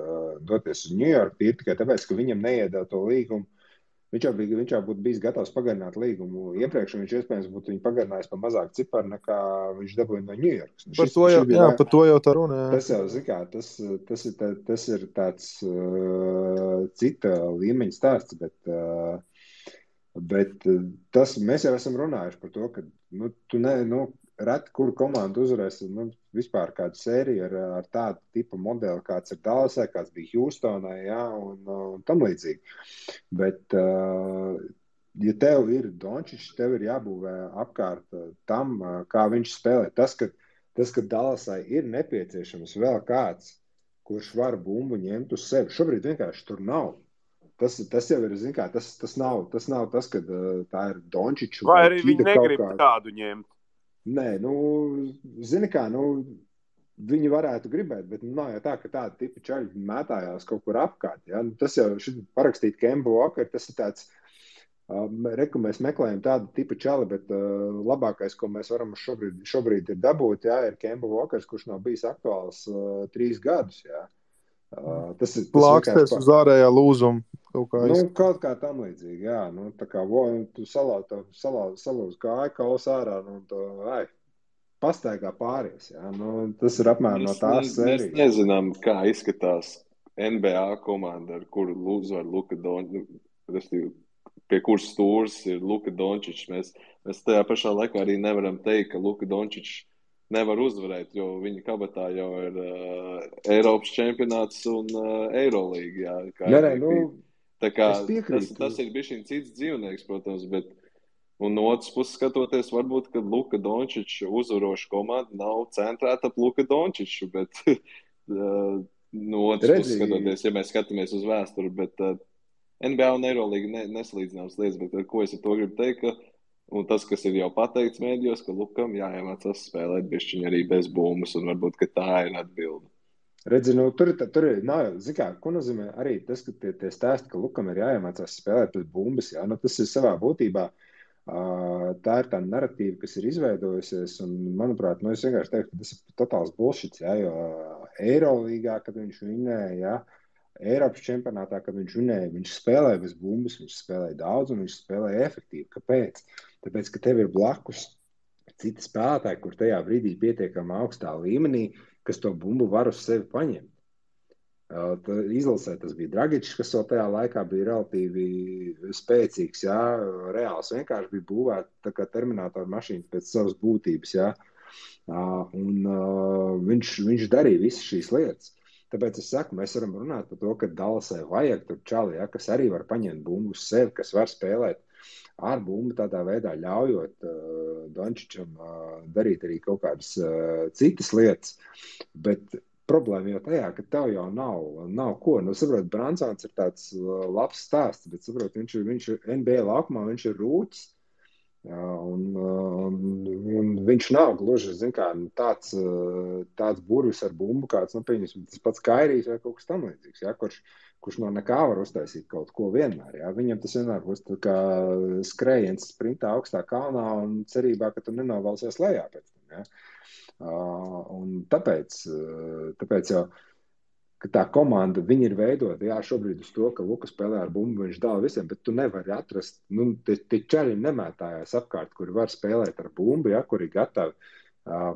doties uz New York, tikai tāpēc, ka viņam neiedeva to līgumu. Viņš jau būtu bijis gatavs pagarināt līgumu iepriekš, un viņš iespējams būtu viņu pagarinājis par mazāk ciparu, nekā viņš dabūja no New York. Par to jau tā runa. Tas jau, tas ir tāds cita līmeņa stāsts, bet mēs jau esam runājuši par to, ka reti, kuru komandu uzvarēs vispār kādu sēriju ar tādu tipu modeli, kāds ir Dallasai, kāds bija Houstonai, un tam līdzīgi. Bet, ja tev ir Dončičs, tev ir jābūvē apkārt tam, kā viņš spēlē. Tas, ka Dallasai ir nepieciešams vēl kāds, kurš var bumbu ņemt uz sevi. Šobrīd vienkārši tur nav. Tas jau ir, tas nav tas, ka tā ir Dončičs. Vai arī viņi negrib tādu ņemt? Nē, viņi varētu gribēt, bet nav jau tā, ka tāda tipa čaļi mētājās kaut kur apkārt. Ja? Tas jau parakstīt Kemba Walker, tas ir tāds, mēs meklējam tādu tipa čali, bet labākais, ko mēs varam šobrīd ir dabūt, ir Kemba Walkers, kurš nav bijis aktuāls 3 gadus. Ja? Plāksties uz ārējā lūzuma. Kaut kā tam līdzīgi, jā. Tā kā tu salūz kāju kaus ārā, pastaigā pāries, jā. Tas ir apmēram no tās sērijas. Mēs nezinām, kā izskatās NBA komanda, ar kuru uzvar Luka Dončičs, pie kuras stūres ir Luka Dončičs. Mēs tajā pašā laikā arī nevaram teikt, ka Luka Dončičs nevar uzvarēt, jo viņa kabatā jau ir Eiropas čempionāts un Eirolīga. Tā kā tas ir bišķiņ cits dzīvnieks, protams, bet un no otras puses skatoties, varbūt, ka Luka Dončičs uzvaroša komanda nav centrēta ap Luka Dončiču, bet no otras puses skatoties, ja mēs skatāmies uz vēsturi, bet NBA un Eirolīga nesalīdzināmas lietas, bet ko es ar to gribu teikt, ka un tas, kas ir jau pateikts mēdījos, ka Lukam jāiemācās spēlēt bišķiņ arī bez bumbas, un varbūt, ka tā ir atbilde. Redzi, tur ir, zin kā, ko nozīmē arī tas, ka tie stāsti, ka Lukam ir jāiemācās spēlēt bez bumbas, jā, tas ir savā būtībā, tā ir tā narratīva, kas ir izveidojusies, un, manuprāt, es vienkārši teiktu, ka tas ir totāls bullshits, jā, jo Eirolīgā, kad viņš vinēja, jā, Eiropas čempionātā, kad viņš vinēja, viņš spēlēja bez bumbas, viņš spēlēja daudz un viņš spēlēja efektīvi. Kāpēc? Tāpēc, ka tev ir blakus citi spēlētāji, kur tajā brīdī pietiekami augstā līmenī, kas to bumbu var uz sevi paņemt. Izlasē tas bija Dragičs, kas vēl tajā laikā bija relatīvi spēcīgs, jā, reāls vienkārši bija būvēta tā kā terminātora mašīnas pēc savas būtības, jā, un viņš darīja visas šīs lietas. Tāpēc es saku, mēs varam runāt par to, ka Dallasai vajag tur čali, ja, kas arī var paņemt bumbu uz sevi, kas var spēlēt ar bumbu tādā veidā, ļaujot Dončičam darīt arī kaut kādas citas lietas. Bet problēma jau tajā, ka tev jau nav ko. Saprot, Bransons ir tāds labs stāsts, bet saprot, viņš NBA laukumā, viņš ir rūķis. Un viņš nav gluži, zin kā, tāds burvis ar bumbu, kāds, pieņemsim, tas pats Kairijs vai kaut kas tam līdzīgs, ja, kurš no nekā var uztaisīt kaut ko vienmēr, ja. Viņam tas vienmēr būs tā kā skrējiens sprintā augstā kalnā un cerībā, ka tu nenovalsies lejā pēc tam, ja. Un tāpēc jau, ka tā komanda, viņi ir veidota, jā, šobrīd uz to, ka Luka spēlē ar bumbu, viņš dala visiem, bet tu nevari atrast, tie čaļi nemētājās apkārt, kuri var spēlēt ar bumbu, ja, kuri gatavi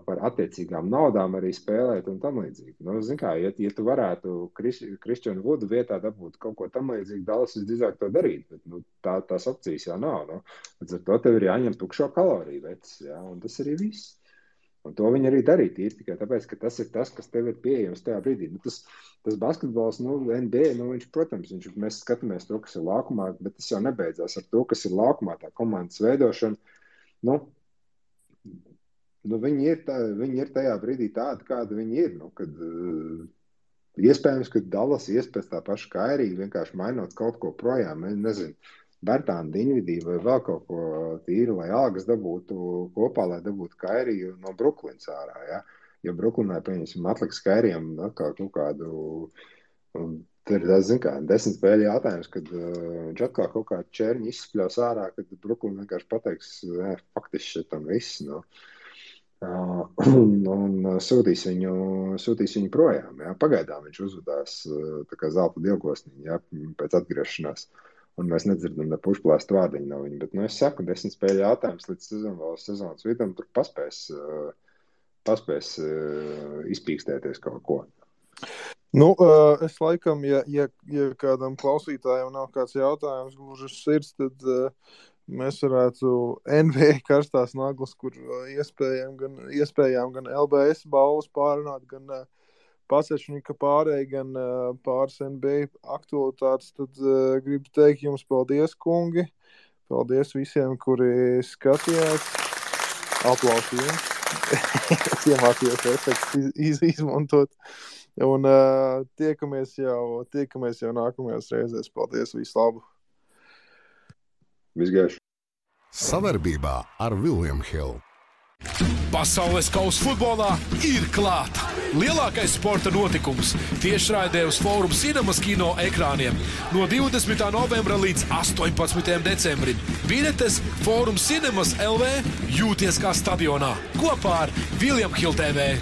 par attiecīgām naudām arī spēlēt un tam līdzīgi. Zin kā, ja tu varētu Kristianu Vudu vietā dabūt kaut ko tam līdzīgi, Dallas visdrīzāk to darīt, bet tās opcijas jau nav. Līdz ar to tev ir jāņem tukšo kaloriju vecs, ja, un tas arī viss. Un to viņi arī darīja tīri tikai tāpēc, ka tas ir tas, kas tev ir pieejams tajā brīdī. Tas basketbols, NBA, viņš, protams, mēs skatāmies to, kas ir laukumā, bet tas jau nebeidzās ar to, kas ir laukumā, tā komandas veidošana. Viņi ir tajā brīdī tādi, kādi viņi ir. Kad, iespējams, ka Dallas iespējas tā paša Kairija vienkārši mainot kaut ko projām, nezinu, Bertāna Diņvidī vai vēl kaut ko tīri, lai algas dabūtu kopā, lai dabūtu Kairiju no Bruklins ārā, ja? Jo Bruklinā, pieņemsim, atliks Kairijam atkal kaut kādu, tur ir, zin kā, 10 spēļu jautājums, kad viņš atkal kaut kādu čērņu izspļaus ārā, kad Bruklina vienkārši pateiks, faktiski šitam viss, un sūtīs viņu projām, ja? Pagaidām viņš uzvedās tā kā zelta dievgosniņa, ja? Pēc atgriešanās. Un mēs nedzirdam ne pušplāstu vārdiņu no viņa, bet, es saku, 10 spēļu jautājums līdz sezonas vidam, tur paspēs izpīkstēties kaut ko. Es laikam, ja kādam klausītājam nav kāds jautājums gluži uz sirds, tad mēs varētu NBA karstās naglas, kur iespējām gan LBS balvas pārunāt, gan Pasečņika pārēj, gan pāris NBA aktualitātes, tad gribu teikt jums paldies, kungi. Paldies visiem, kuri skatījās. Aplausi jums. Es iemācījos efekts izmantot. Un tiekamies jau nākamajās reizēs. Paldies, visu labu. Visgaiši. Savarbībā ar William Hill. Pasaules kausa futbolā ir klāta. Lielākais sporta notikums tiešraidē uz Fórum Cinemas kino ekrāniem no 20. novembra līdz 18. decembrim. Biļetes Fórum Cinemas LV jūties kā stadionā kopā ar William Hill TV.